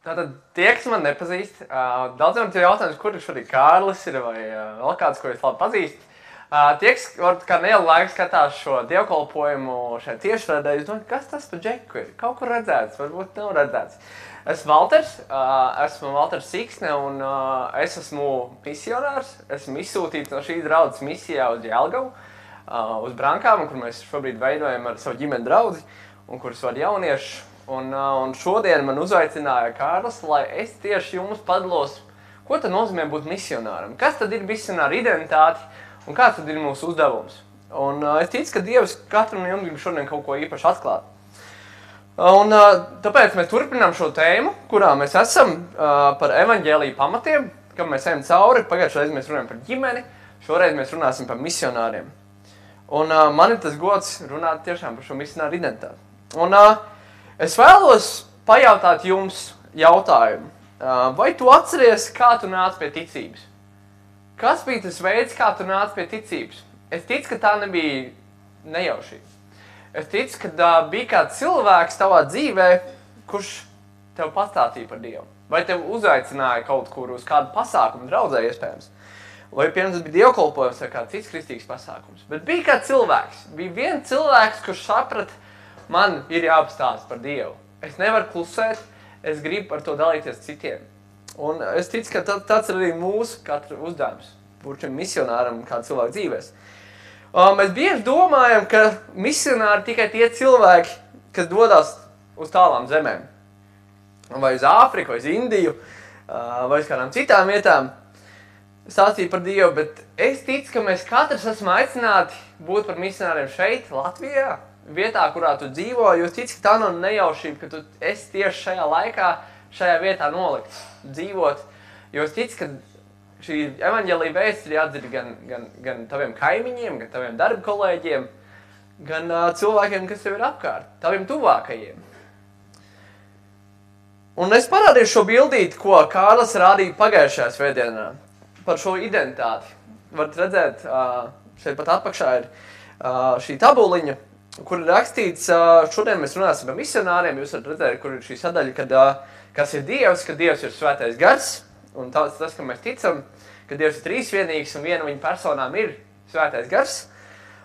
Tātad tie, kas man nepazīst, daudziem ir jautājums, kur šodien Kārlis ir vai vēl kāds, ko es labi pazīstu. Tie, kas kā nelielu laiku skatās šo dievkalpojumu šeit tiešraidē, es domāju, kas tas par džeku ir? Kaut kur redzēts, varbūt nav redzēts. Esmu Valters Siksne un es esmu misionārs. Esmu izsūtīts no šīs draudzes misijā uz Jelgavu, uz Brankām, kur mēs šobrīd veidojam ar savu ģimeni draudzi un kurus vada jaunieši. Un šodien man uzaicināja Kārlis, lai es tieši jums padalos, ko tad nozīmē būt misionāram. Kas tad ir misionāra identitāte un kāds tad ir mūsu uzdevums. Un es ticu, ka Dievs katram no jums grib šodien kaut ko īpaši atklāt. Un tāpēc mēs turpinām šo tēmu, kurā mēs esam par evaņģēliju pamatiem, kam mēs ejam cauri. Pagājušajā reizē mēs runājam par ģimeni, šoreiz mēs runāsim par misionāriem. Un man ir tas gods runāt tiešām par šo misionāru identitāti. Un es vēlos pajautāt jums jautājumu. Vai tu atceries, kā tu nāc pie ticības? Kas bija tas veids, kā tu nāc pie ticības? Es ticu, ka tā nebija nejaušība. Es ticu, ka bija kāds cilvēks tavā dzīvē, kurš tev pastāstīja par Dievu. Vai tev uzaicināja kaut kur uz kādu pasākumu draudzē iespējams. Vai pirms bija dievkalpojums vai kāds cits kristīgs pasākums. Bet bija kāds cilvēks. Bija viens cilvēks, kurš saprata, man ir jāapstāsta par Dievu. Es nevaru klusēt, es gribu par to dalīties citiem. Un es ticu, ka tāds ir arī mūsu katra uzdevums. Būt šim misionāram kādu cilvēku dzīvēs. Mēs bieži domājam, ka misionāri tikai tie cilvēki, kas dodas uz tālām zemēm. Vai uz Āfriku, vai uz Indiju, vai uz kādām citām vietām. Stāstīt par Dievu, bet es ticu, ka mēs katrs esam aicināti būt par misionāriem šeit, Latvijā, vietā, kurā tu dzīvo, jo es ticu, ka tā nav nejaušība, ka tu esi tieši šajā laikā, šajā vietā nolikts, dzīvot. Jo es ticu, ka šī evaņģēlija vēsts ir jādzird gan taviem kaimiņiem, gan taviem darba kolēģiem, gan cilvēkiem, kas tev ir apkārt, taviem tuvākajiem. Un es parādīšu šo bildīti, ko Kārlis rādīja pagājušajā svētdienā par šo identitāti. Varat redzēt, šeit pat atpakšā ir šī tabuliņa, kur ir rakstīts, šodien mēs runāsim par misionāriem, jūs varat redzēt, kur ir šī sadaļa, kas ir Dievs, ka Dievs ir svētais gars, un tas, ka mēs ticam, ka Dievs ir trīsvienīgs un viena viņa personām ir svētais gars.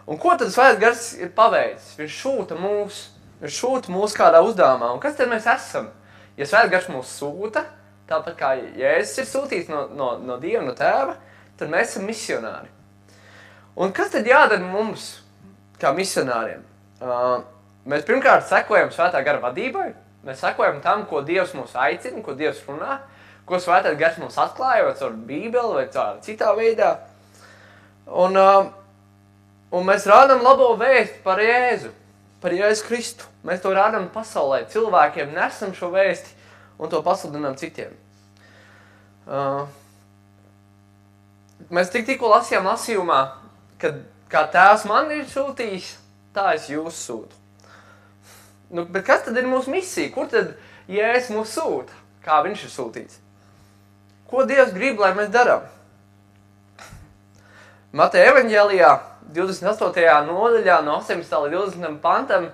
Un ko tad svētais gars ir paveicis? Viņš šūta mūs kādā uzdevumā. Un kas tad mēs esam? Ja svētais gars mūs sūta, tāpat kā Jēzus ir sūtīts no Dieva, no Tēva, tad mēs esam misionāri. Un kas tad jādara mums, kā misionāriem? Mēs pirmkārt sekojam svētā gara vadībai, mēs sekojam tam, ko Dievs mūs aicina, ko Dievs runā, ko svētais gars mums atklāja, vai caur Bībeli, vai caur citā veidā. Un mēs rādām labo vēstu par Jēzu Kristu. Mēs to rādām pasaulē, cilvēkiem nesam šo vēsti un to pasludinām citiem. Mēs tikko lasījām lasījumā, ka kā Tēvs man ir sūtījis, tā es jūs sūtu. Bet kas tad ir mūsu misija? Kur tad Jēzus mūs sūta? Kā viņš ir sūtīts? Ko Dievs grib, lai mēs darām? Mateja evaņģēlijā 28. nodaļā no 18. līdz 20. pantam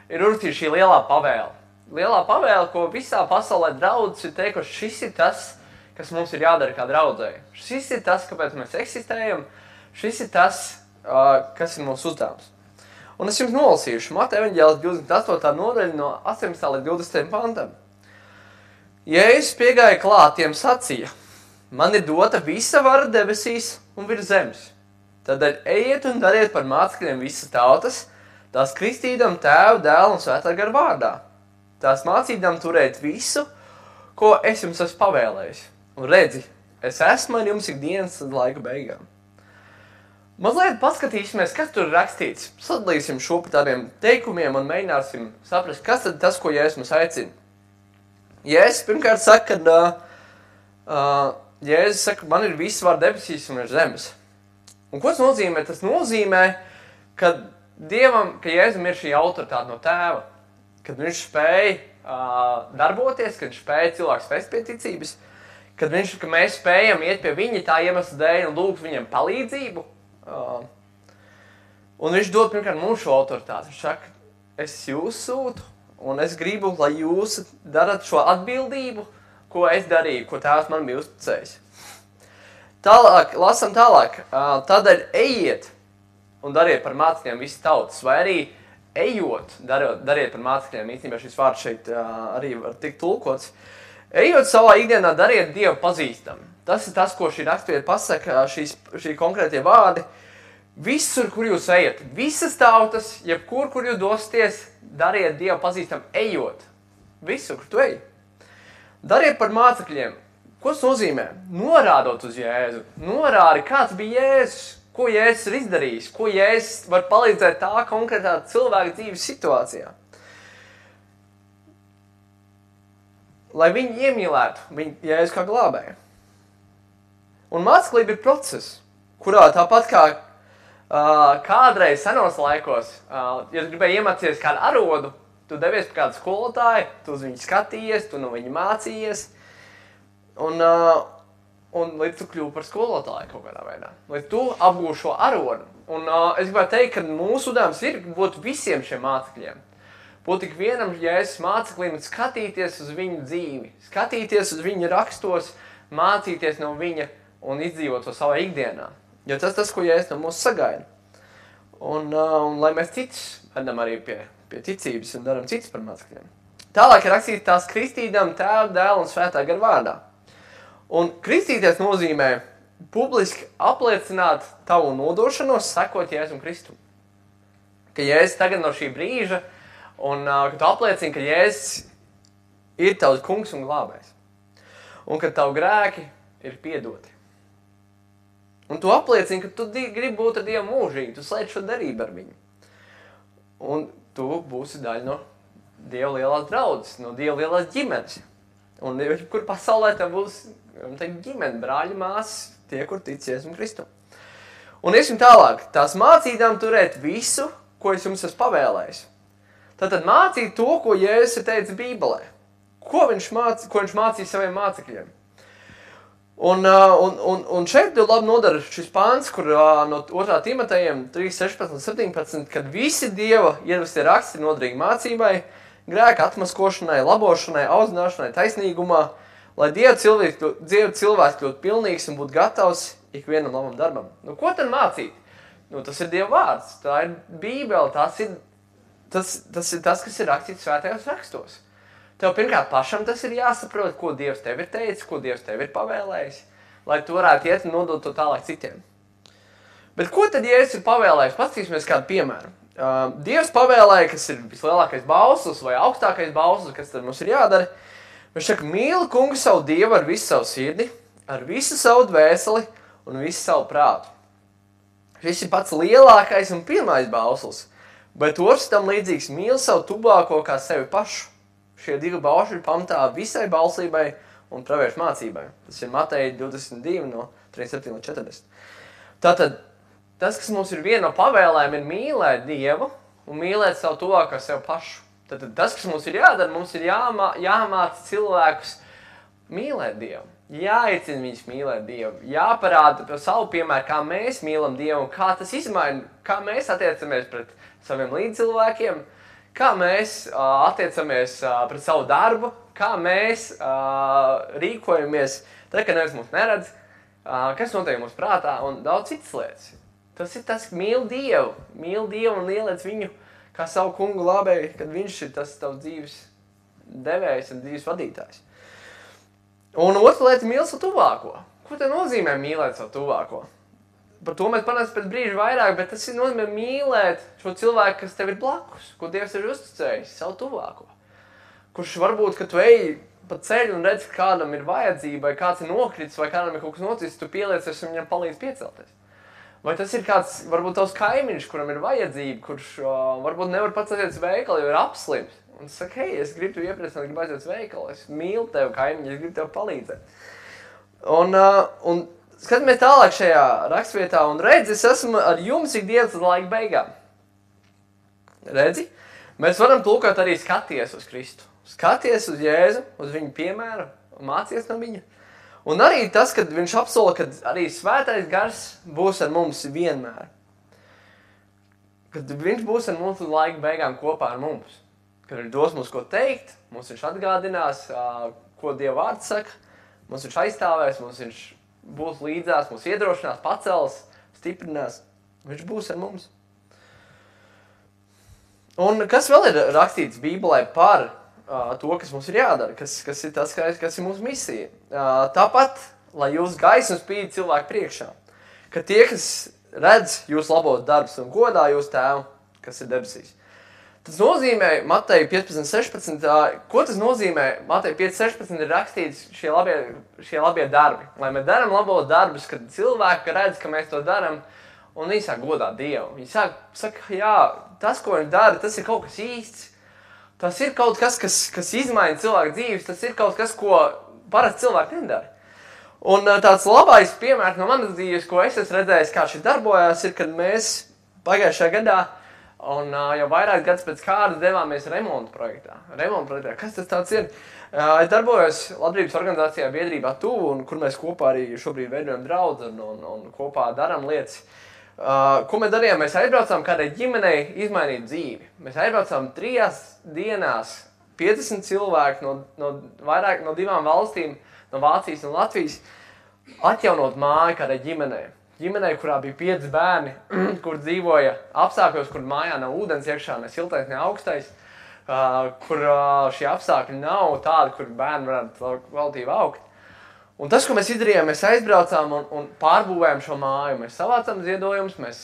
ir uzrakstīta šī lielā pavēle. Lielā pavēle, ko visā pasaulē draudzes ir teikuši, šis ir tas, kas mums ir jādara kā draudzei. Šis ir tas, kāpēc mēs eksistējam. Šis ir tas, kas ir mūsu uzdevums. Un es jums nolasīšu Mateja evaņģēlijas 28. nodaļa no 18. līdz 20. pantam. Jēzus piegāja klāt, tiem sacīja, man ir dota visa vara debesīs un virs zemes. Tādēļ ejiet un dariet par mācekļiem visas tautas, tās kristīdam Tēvu, Dēlu un Svētā gara vārdā. Tās mācīdam turēt visu, ko es jums esmu pavēlējis. Un redzi, es esmu ar jums ikdienas līdz laika beigām. Mazliet paskatīsimies, kas tur ir rakstīts. Sadalīsim šo pa tādiem teikumiem un mēģināsim saprast, kas tad tas, ko Jēzus mums aicina. Jēzus pirmkārt saka, Jēzus saka, man ir viss var debesīs un ir zemes. Un ko tas nozīmē? Tas nozīmē, ka Dievam, ka Jēzum ir šī autoritāte no Tēva, kad viņš spēja darboties, kad viņš spēja cilvēks vest pie ticības, ka mēs spējam iet pie viņa tā iemesla dēļ un lūgt viņam palīdzību. Un viņš dod pirmkārt mums šo autoritāti. Viņš saka, es jūs sūtu, un es gribu, lai jūs darat šo atbildību, ko es darīju, ko Tēvs man bija uzticējis. Tālāk, lasam tālāk. Tādēļ ejiet un dariet par mācekļiem visas tautas, vai arī ejot, dariet par mācekļiem. Īstenībā šis vārds šeit arī var tikt tulkots. Ejot savā ikdienā, dariet Dievu pazīstam. Tas ir tas, ko šī rakstvieta pasaka, šī konkrētie vārdi. Visur, kur jūs ejat, visas tautas, jebkur, kur jūs dosieties, dariet Dievu pazīstam, ejot. Visur, kur tu ej. Dariet par mācekļiem. Ko tas nozīmē? Norādot uz Jēzu. Norādi, kāds bija Jēzus, ko Jēzus ir izdarījis, ko Jēzus var palīdzēt tā konkrētā cilvēka dzīves situācijā. Lai viņi iemīlētu viņu Jēzu kā glābēju. Un māceklība ir process, kurā tāpat kā kādreiz senos laikos, ja tu gribēji iemācīties kādu arodu, tu devies pie kādu skolotāju, tu uz viņu skatījies, tu no viņa mācījies, un līdz tu kļūsi par skolotāju kaut kādā veidā. Līdz tu apgūsi šo arodu. Un es gribētu teikt, ka mūsu uzdevums ir būt visiem šiem mācekļiem. Būt tik vienam Jēzus māceklim un skatīties uz viņu dzīvi, skatīties uz viņa rakstos, mācīties no viņa un izdzīvot to savā ikdienā. Jo tas, ko Jēzus no mūs sagaida. Un lai mēs citus vedam arī pie ticības un daram citus par mācekļiem. Tālāk ir rakstīts tās kristīdam Tēva, Dēla un Svētā gara vārdā. Un kristīties nozīmē publiski apliecināt tavu nodošanos, sekot Jēzum Kristum. Ka Jēzus tagad no šī brīža, un ka tu apliecini, ka Jēzus ir tavs kungs un glābējs. Un ka tavu grēki ir piedoti. Un tu apliecini, ka tu gribi būt ar Dievu mūžīgi, tu slēdz šo darību ar viņu. Un tu būsi daļa no Dieva lielās draudzes, no Dieva lielās ģimenes. Un kur pasaulē tev būs ģimene, brāļi, māsas, tie, kur tic Jēzum Kristum. Un iesim tālāk, tās mācītām turēt visu, ko es jums esmu pavēlējis. Tātad mācīt to, ko Jēzus ir teicis Bībelē. Ko viņš mācīja saviem mācekļiem. Un šeit jau labi nodara šis pāns, kur no 2. Timotejiem 3:16 un 17, kad visi Dieva iedvestie raksti ir noderīgi mācībai, grēka atmaskošanai, labošanai, audzināšanai, taisnīgumā, lai Dieva cilvēks kļūtu pilnīgs un būtu gatavs ikvienam labam darbam. Nu, ko tad mācīt? Nu, tas ir Dieva vārds, tā ir Bībele, tas ir tas, kas ir rakstīts svētajos rakstos. Tev pirmkārt pašam tas ir jāsaprot, ko Dievs tev ir teicis, ko Dievs tev ir pavēlējis, lai tu varētu iet un nodot to tālāk citiem. Bet ko tad Jēzus ir pavēlējis? Paskatīsimies kādu piemēru. Dievs pavēlēja, kas ir vislielākais bauslis vai augstākais bauslis, kas tad mums ir jādara. Viņš saka, mīli kungu savu Dievu ar visu savu sirdi, ar visu savu dvēseli un visu savu prātu. Šis ir pats lielākais un pirmais bauslis, bet otrs tam līdzīgs mīli savu tuvāko kā sevi pašu. Šie divi baušļi ir pamatā visai bauslībai un praviešu mācībai. Tas ir Mateja 22 no 37 līdz 40. Tātad, tas, kas mums ir viena no pavēlēm, ir mīlēt Dievu un mīlēt savu tuvāko kā sevi pašu. Tātad, tas, kas mums ir jādara, mums ir jāmāca cilvēkus mīlēt Dievu. Jāicina viņus mīlēt Dievu. Jāparāda par savu piemēru, kā mēs mīlam Dievu un kā tas izmaina, kā mēs attiecamies pret saviem līdzcilvēkiem, kā mēs attiecamies pret savu darbu, kā mēs rīkojamies, tad, kad neviens mūs neredz, kas notiek mūsu prātā un daudz citas lietas. Tas ir tas, mīl Dievu un ieliec viņu kā savu kungu glābēju, kad viņš ir tas tavs dzīves devējs un dzīves vadītājs. Un otra lieta, mīl savu tuvāko. Ko te nozīmē mīlēt savu tuvāko? Par to mēs panāsim pēc brīža vairāk, bet tas ir nozīmē mīlēt šo cilvēku, kas tev ir blakus, ko Dievs ir uzticējis, savu tuvāko. Kurš varbūt, ka tu ej pa ceļu un redz, ka kādam ir vajadzība, vai kāds ir nokritis, vai kādam ir kaut kas noticis, tu pieliecies un viņam palīdz piecelties. Vai tas ir kāds, varbūt tavs kaimiņš, kuram ir vajadzība, kurš varbūt nevar pats aiziet uz veikalu, jo ir apslims. Un tu saki, hei, es gribu tev iepriecināt, gribu aiziet uz veikalu, es mīlu tevi kaimiņu, es gribu tev palīdzēt. Un skatāmies tālāk šajā rakstvietā un redzi, es esmu ar jums ikdienas līdz laika beigām. Redzi? Mēs varam tulkot arī skaties uz Kristu. Skaties uz Jēzu, uz viņu piemēru un mācies no viņa. Un arī tas, kad viņš apsola, ka arī svētais gars būs ar mums vienmēr. Kad viņš būs ar mums līdz laika beigām kopā ar mums. Kad viņš dos mums ko teikt, mums viņš atgādinās, ko Dieva vārds saka. Mums viņš aizstāvēs, mums viņš būs līdzās, mums iedrošinās, pacels, stiprinās. Viņš būs ar mums. Un kas vēl ir rakstīts Bībelē par to, kas mums ir jādara, kas ir tas, kas ir mūsu misija. Tāpat, lai jūs gaisma spīd cilvēku priekšā, ka tie, kas redz jūs labos darbus un godā jūs tēvu, kas ir debesīs. Tas nozīmē, Mateja 15.16, ko tas nozīmē? Mateja 5.16 ir rakstīts šie labie darbi. Lai mēs daram labos darbus, kad cilvēki redz, ka mēs to daram, un viņi sāk godāt Dievu. Viņi saka, jā, tas, ko viņi dara, tas ir kaut kas īsts. Tas ir kaut kas, kas izmaina cilvēku dzīves, tas ir kaut kas, ko parasti cilvēki nedara. Un tāds labais piemērs no manas dzīves, ko es esmu redzējis, kā šis darbojās, ir, kad mēs pagājušajā gadā un jau vairāk gadus pēc kāda devāmies remontu projektā. Kas tas tāds ir? Es darbojos labdarības organizācijā biedrībā Tuvu, un kur mēs kopā arī šobrīd veidojam draudzi un kopā darām lietas. Ko mēs darījām? Mēs aizbraucām kādai ģimenei izmainīt dzīvi. Mēs aizbraucām 3 dienās 50 cilvēku no 2 valstīm, no Vācijas un Latvijas, atjaunot māju kādai ģimenei. Ģimenei, kurā bija 5 bērni, kur dzīvoja apstākļos, kur mājā nav ūdens iekšā, ne siltais, ne augstais, kur šie apstākļi nav tādi, kur bērni varētu kvalitīvi augt. Un tas, ko mēs izdarījām, mēs aizbraucām un pārbūvējām šo māju. Mēs savācām ziedojumus, mēs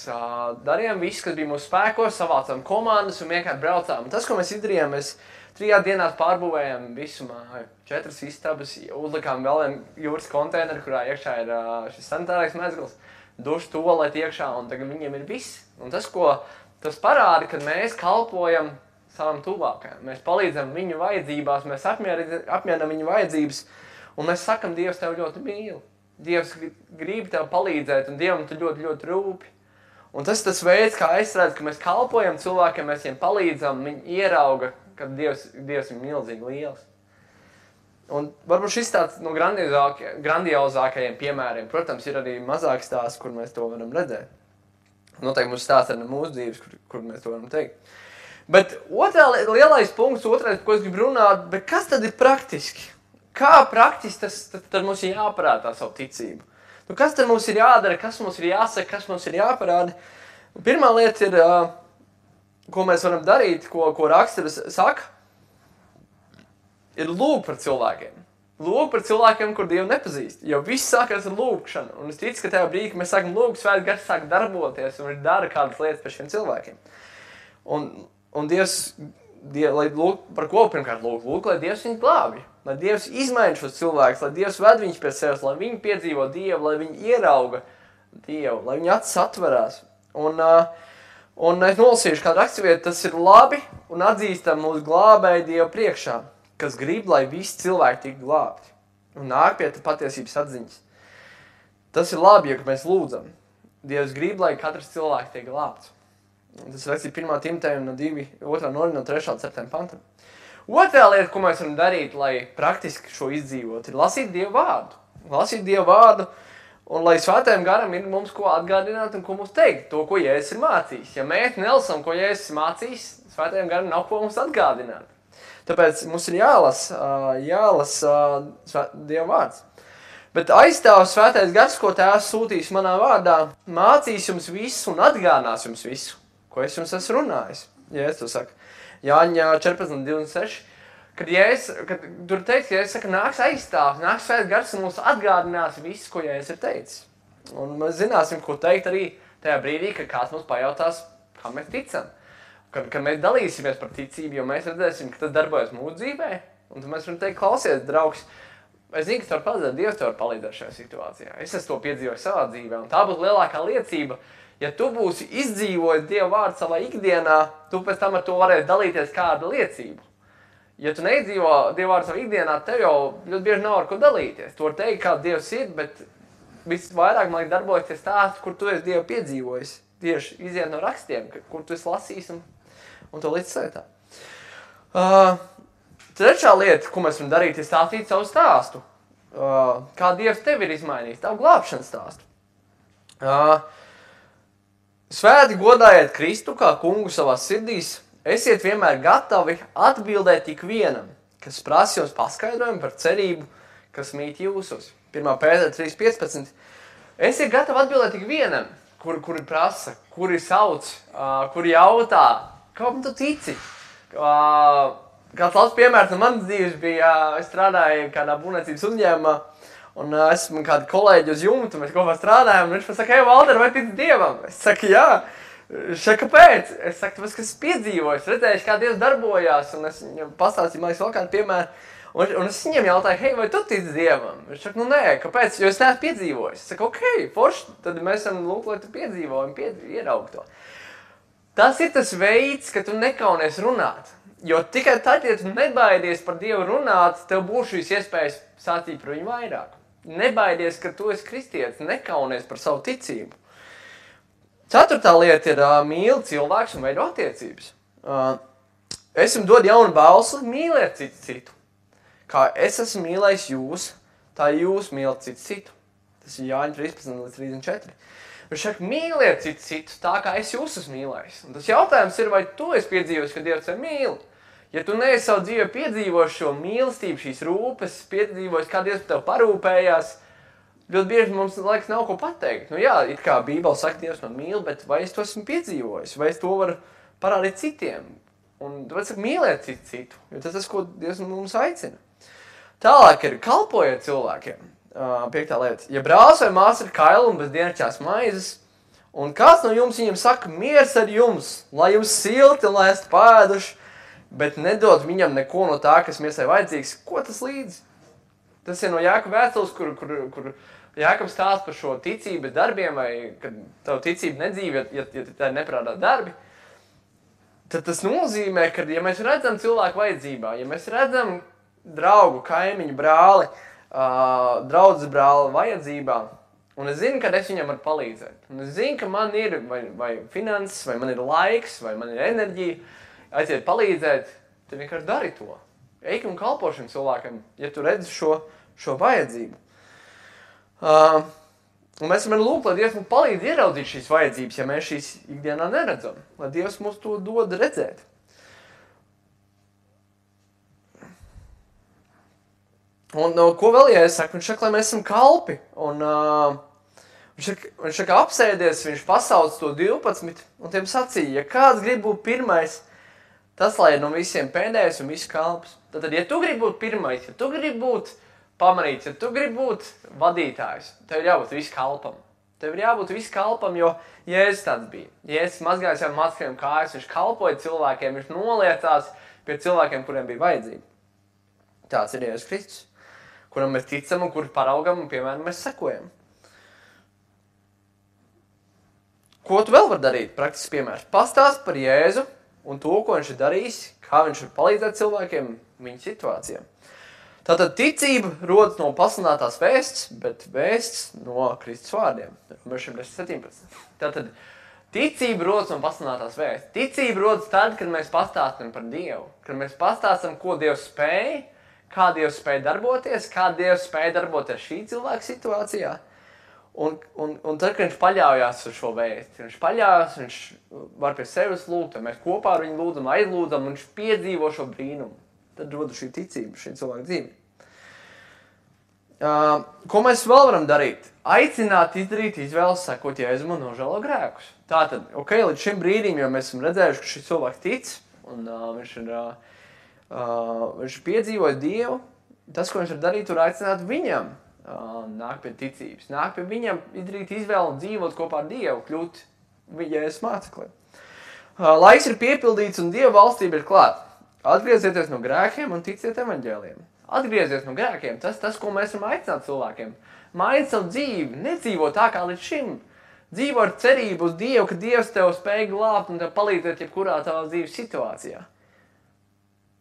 darījām visu, kas bija mūsu spēkos, savācām komandas un vienkārši braucām. Un tas, ko mēs izdarījām, mēs 3 dienās pārbūvējām visu māju. 4 istabas, uzlikām vēl vienu jūras konteineru, kurā iekšā ir šis sanitārais mezgls, dušu tualeti iekšā, un tagad viņiem ir viss. Un tas parāda, ka mēs kalpojam savam tuvākajam. Mēs palīdzam viņu vajadzībās, mēs apmierinam viņu vajadzības. Un mēs sakam, Dievs tev ļoti mīl. Dievs grib tev palīdzēt, un Dievam tu ļoti, ļoti rūpi. Un tas ir tas veids, kā es redzu, ka mēs kalpojam cilvēkiem, mēs viņiem palīdzam, viņi ierauga, ka Dievs ir milzīgi liels. Un varbūt šis tāds no grandiozākajiem piemēriem, protams, ir arī mazāk stāsts, kur mēs to varam redzēt. Noteikti mums stāsts arī no mūsu dzīves, kur mēs to varam teikt. Bet lielais punkts, otrais, ko es gribu runāt, bet kas tad ir praktiski? Kā praktiski tad mums ir jāparāda savu ticību? Kas tad mums ir jādara, kas mums ir jāsaka, kas mums ir jāparāda? Pirmā lieta ir, ko mēs varam darīt, ko raksturs saka, ir lūgt par cilvēkiem. Lūgt par cilvēkiem, kur Dievu nepazīst. Jo viss sākās ar lūgšanu. Un es ticu, ka tajā brīdī, kad mēs sākam lūgt, Svētais Gars sāk darboties un dara kādas lietas par šiem cilvēkiem. Un Dievs, lai lūgt, par ko pirmkārt lūgt, lai Dievs viņu glābj. Lai Dievs izmaina šos cilvēkus, lai Dievs ved viņus pie sevis, lai viņi piedzīvo Dievu, lai viņi ierauga Dievu, lai viņi acis atverās. Un es nolasīšu kādu raksturvietu, tas ir labi un atzīstam mūsu glābēju Dievu priekšā, kas grib, lai visi cilvēki tik glābti un nāk pie patiesības atziņas. Tas ir labi, ja mēs lūdzam. Dievs grib, lai katrs cilvēks tiek glābts. Un tas ir rakstīts 1. Timotejam no 2. no 3. 7. pantam. Otrā lieta, ko mēs varam darīt, lai praktiski šo izdzīvot, ir lasīt Dievu vārdu. Lasīt Dievu vārdu, un lai Svētajam Garam ir mums ko atgādināt un ko mums teikt, to, ko Jēzus ir mācījis. Ja mēs nelasam, ko Jēzus ir mācījis, Svētajam Garam nav ko mums atgādināt. Tāpēc mums ir jālasa Dievu vārds. Bet aizstāv Svētais Gars, ko Tēvs sūtīs manā vārdā, mācīs jums visu un atgādinās jums visu, ko es jums esmu runājis. Jēzus to saka. Jāņa 14.26, kad tur teiks, ka Jēzus saka, nāks aizstāvs, nāks Svētais Gars un mums atgādinās visu, ko Jēzus ir teicis. Un mēs zināsim, ko teikt arī tajā brīdī, kad kāds mums pajautās, kā mēs ticam. Kad mēs dalīsimies par ticību, jo mēs redzēsim, ka tas darbojas mūsu dzīvē, un tad mēs varam teikt, klausies, draugs, es zinu, ka tev var palīdzēt, Dievs tev var palīdzēt šajā situācijā. Es esmu to piedzīvojis savā dzīvē, un tā būs lielākā liecība. Ja tu būsi izdzīvojis Dieva vārdu savā ikdienā, tu pēc tam ar to varēsi dalīties kādu liecību. Ja tu neizdzīvo Dieva vārdu savā ikdienā, tev jau ļoti bieži nav ar ko dalīties. Tu vari teikt, kā Dievs ir, bet visvairāk, man liekas, darbojas tie stāsti, kur tu esi Dievu piedzīvojis. Tieši iziet no rakstiem, kur tu esi lasījis un to līdz sētā. Trešā lieta, ko mēs varam darīt, ir stāstīt savu stāstu. Kā Dievs tevi ir izmainījis, tavu glābšanas stāstu. Svēti godājiet Kristu kā kungu savās sirdīs, esiet vienmēr gatavi atbildēt ikvienam, kas prasa jums paskaidrojumu par cerību, kas mīt jūsos. 1. Pētera 3.15. Esiet gatavi atbildēt tik vienam, kuri prasa, kuri sauc, kuri jautā, kāpēc tu tici? Kāds labs piemērs no manas dzīves bija, es strādāju kādā būvniecības uzņēmumā, un esmu kādu kolēģi uz jumtu, mēs kopā strādājam, un viņš man saka, hei, Valter, vai tici Dievam? Es saku, jā. Kāpēc? Es saku, tāpēc, ka es piedzīvoju, es redzēju, kā Dievs darbojās, un es viņam pastāstīju, man liekas, vēl kādu piemēru. Un es viņam jautāju, hei, vai tu tici Dievam? Viņš saka, nu nē, kāpēc? Jo es neesmu piedzīvojis. Es saku, ok, forši, tad mēs esam lūk, lai tu piedzīvo un ieraug to. Tas ir tas veids, ka tu nekaunies runāt. Jo tikai tad, ja tu nebaidies par Dievu runāt, tev būs šīs iespējas sācīt par viņu vairāk. Nebaidies, ka tu esi kristietis, nekaunies par savu ticību. 4. lieta ir mīli cilvēks un veido attiecības. Es jums dodu jaunu balsu, mīliet citu. Kā es esmu mīlējis jūs, tā jūs mīlat citu. Tas ir Jāņa 13:34. Viņš saka, mīliet citu tā, kā es jūs esmu mīlējis. Un tas jautājums ir, vai tu esi piedzīvojis, ka Dievs tevi mīl? Ja tu neesi savu dzīvē piedzīvojis šo mīlestību, šīs rūpes, piedzīvojis, kā Dievs tev parūpējās, ļoti bieži mums, laikas, nav ko pateikt. Nu jā, it kā Bībele saka, Dievs man mīl, bet vai es to esmu piedzīvojis? Vai es to varu parādīt citiem? Un tāpēc saka, mīliet citu, jo tas ir tas, ko Dievs mums aicina. Tālāk ir kalpojiet cilvēkiem. 5. lieta. Ja brālis vai māsa ir kaila un bez dienasčās maizes, un kāds no jums viņam saka, miers ar jums, lai jums silti un lai esat pēduši, bet nedod viņam neko no tā, kas miesai vajadzīgs, ko tas līdzi? Tas ir no Jākaba vēstules, kur Jākabs stāsta par šo ticību darbiem, vai kad tavu ticību nedzīvi, ja tā ir neprātā darbi, tad tas nozīmē, ka, ja mēs redzam cilvēku vajadzībā, ja mēs redzam draugu, kaimiņu, brāli, draudzes brāli vajadzībā, un es zinu, ka es viņam varu palīdzēt, un es zinu, ka man ir vai finanses, vai man ir laiks, vai man ir enerģija, aiziet palīdzēt, tad vienkārši dari to. Eik un kalpo šim cilvēkam, ja tu redzi šo vajadzību. Un mēs varam lūgt, lai Dievs mums palīdz ieraudzīt šīs vajadzības, ja mēs šīs ikdienā neredzam. Lai Dievs mums to dod redzēt. Un ko vēl, ja es saku? Viņš saka, lai mēs esam kalpi. Un viņš saka, apsēdies, viņš pasauc to 12 un tiem sacīja, ja kāds grib būt pirmais, tas, lai ir no visiem pēdējais un visu kalps. Tad, ja tu gribi būt pirmais, ja tu gribi būt pamanīts, ja tu gribi būt vadītājs, tev ir jābūt visu kalpam. Tev ir jābūt visu kalpam, jo Jēzus tāds bija. Jēzus mazgāja saviem mācekļiem kājas, viņš kalpoja cilvēkiem, viņš noliecās pie cilvēkiem, kuriem bija vajadzība. Tāds ir Jēzus Kristus, kuram mēs ticam un kuru paraugam un, piemēram, mēs sekojam. Ko tu vēl var darīt? Praktisks piemērs. Pastāst par Jēzu un to, ko viņš ir darījis, kā viņš var palīdzēt cilvēkiem viņu situācijām. Tātad ticība rodas no pasludinātās vēsts, bet vēsts no Kristus vārdiem. 17. Tātad ticība rodas no pasludinātās vēsts. Ticība rodas tad, kad mēs pastāstam par Dievu. Kad mēs pastāstam, ko Dievs spēj, kā Dievs spēj darboties, kā Dievs spēj darboties šī cilvēka situācijā. Un tad, kad viņš paļaujās uz šo vēsti, viņš paļaujās, viņš var pie sevis lūgt, mēs kopā ar viņu lūdzam, aizlūdzam, un viņš piedzīvo šo brīnumu. Tad rodas šī ticība, šī cilvēka dzīve. Ko mēs vēl varam darīt? Aicināt izdarīt izvēles, sakot, Jēzum un nožēlo grēkus. Tātad, ok, līdz šim brīdim, jo mēs esam redzējuši, ka šis cilvēks tic, un viņš piedzīvoja Dievu, tas, ko viņš var darīt, tur aicināt viņam. Nāk pie ticības, nāk pie viņam, izdarīt izvēli un dzīvot kopā ar Dievu, kļūt Jēzus mācekliem. Laiks ir piepildīts un Dieva valstība ir klāt. Atgriezieties no grēkiem un ticiet evaņģēliem. Atgriezies no grēkiem, tas, ko mēs varam aicināt cilvēkiem. Maini savu dzīvi, nedzīvo tā kā līdz šim. Dzīvo ar cerību uz Dievu, ka Dievs tev spēj glābt un tev palīdzēt jebkurā tavā dzīves situācijā.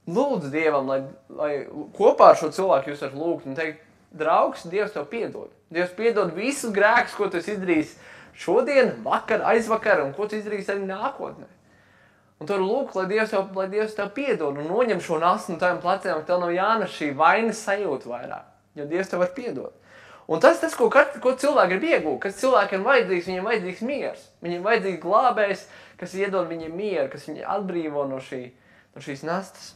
Lūdzu Dievam, lai kopā ar šo cilvēku jūs varat lūgt un teikt, draugs, Dievs tev piedod. Dievs piedod visus grēkus, ko tu esi izdarījis šodien, vakar, aizvakar un ko tu izdarījis arī nākotnē. Un tu vari lūgt, lai Dievs tev piedod un noņem šo nastu no taviem pleciem, ka tev nav jānes šī vainas sajūta vairāk, jo Dievs tev var piedot. Un tas, ko cilvēki grib iegūt, kas cilvēkiem vajadzīgs, viņiem vajadzīgs miers. Viņiem vajadzīgs glābējs, kas iedod viņiem mieru, kas viņi atbrīvo no šīs nastas.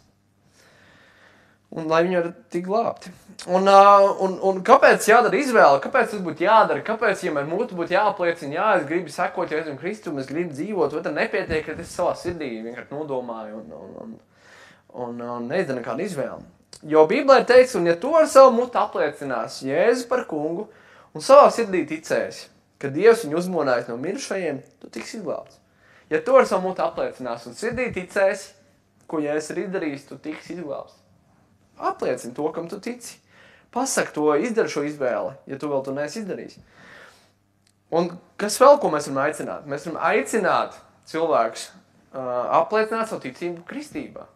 Un lai viņi var tik glābti. Un kāpēc jādara izvēle? Kāpēc tas būtu jādara? Kāpēc, ja man būtu jāapliecina, jā, es gribu sekot Jēzum Kristum, es gribu dzīvot, vai tad nepietiek, ka es savā sirdī vienkārši nodomāju un neizdara nekādu izvēli. Jo Bībelē ir teikts, un ja tu ar savu mutu apliecinās Jēzu par kungu un savā sirdī ticēsi, ka Dievs viņu uzmonājis no mirušajiem, tu tiks izglābts. Ja tu ar savu mutu apliecinās un sirdī ticēsi, ko Jēzus ir izdarījis, tu tiks izglābts. Apliecini to, kam tu tici. Pasaki to, izdari šo izvēli, ja tu vēl to neesi izdarījis. Un kas vēl, ko mēs varam aicināt? Mēs varam aicināt cilvēkus apliecināt savu ticību kristībā.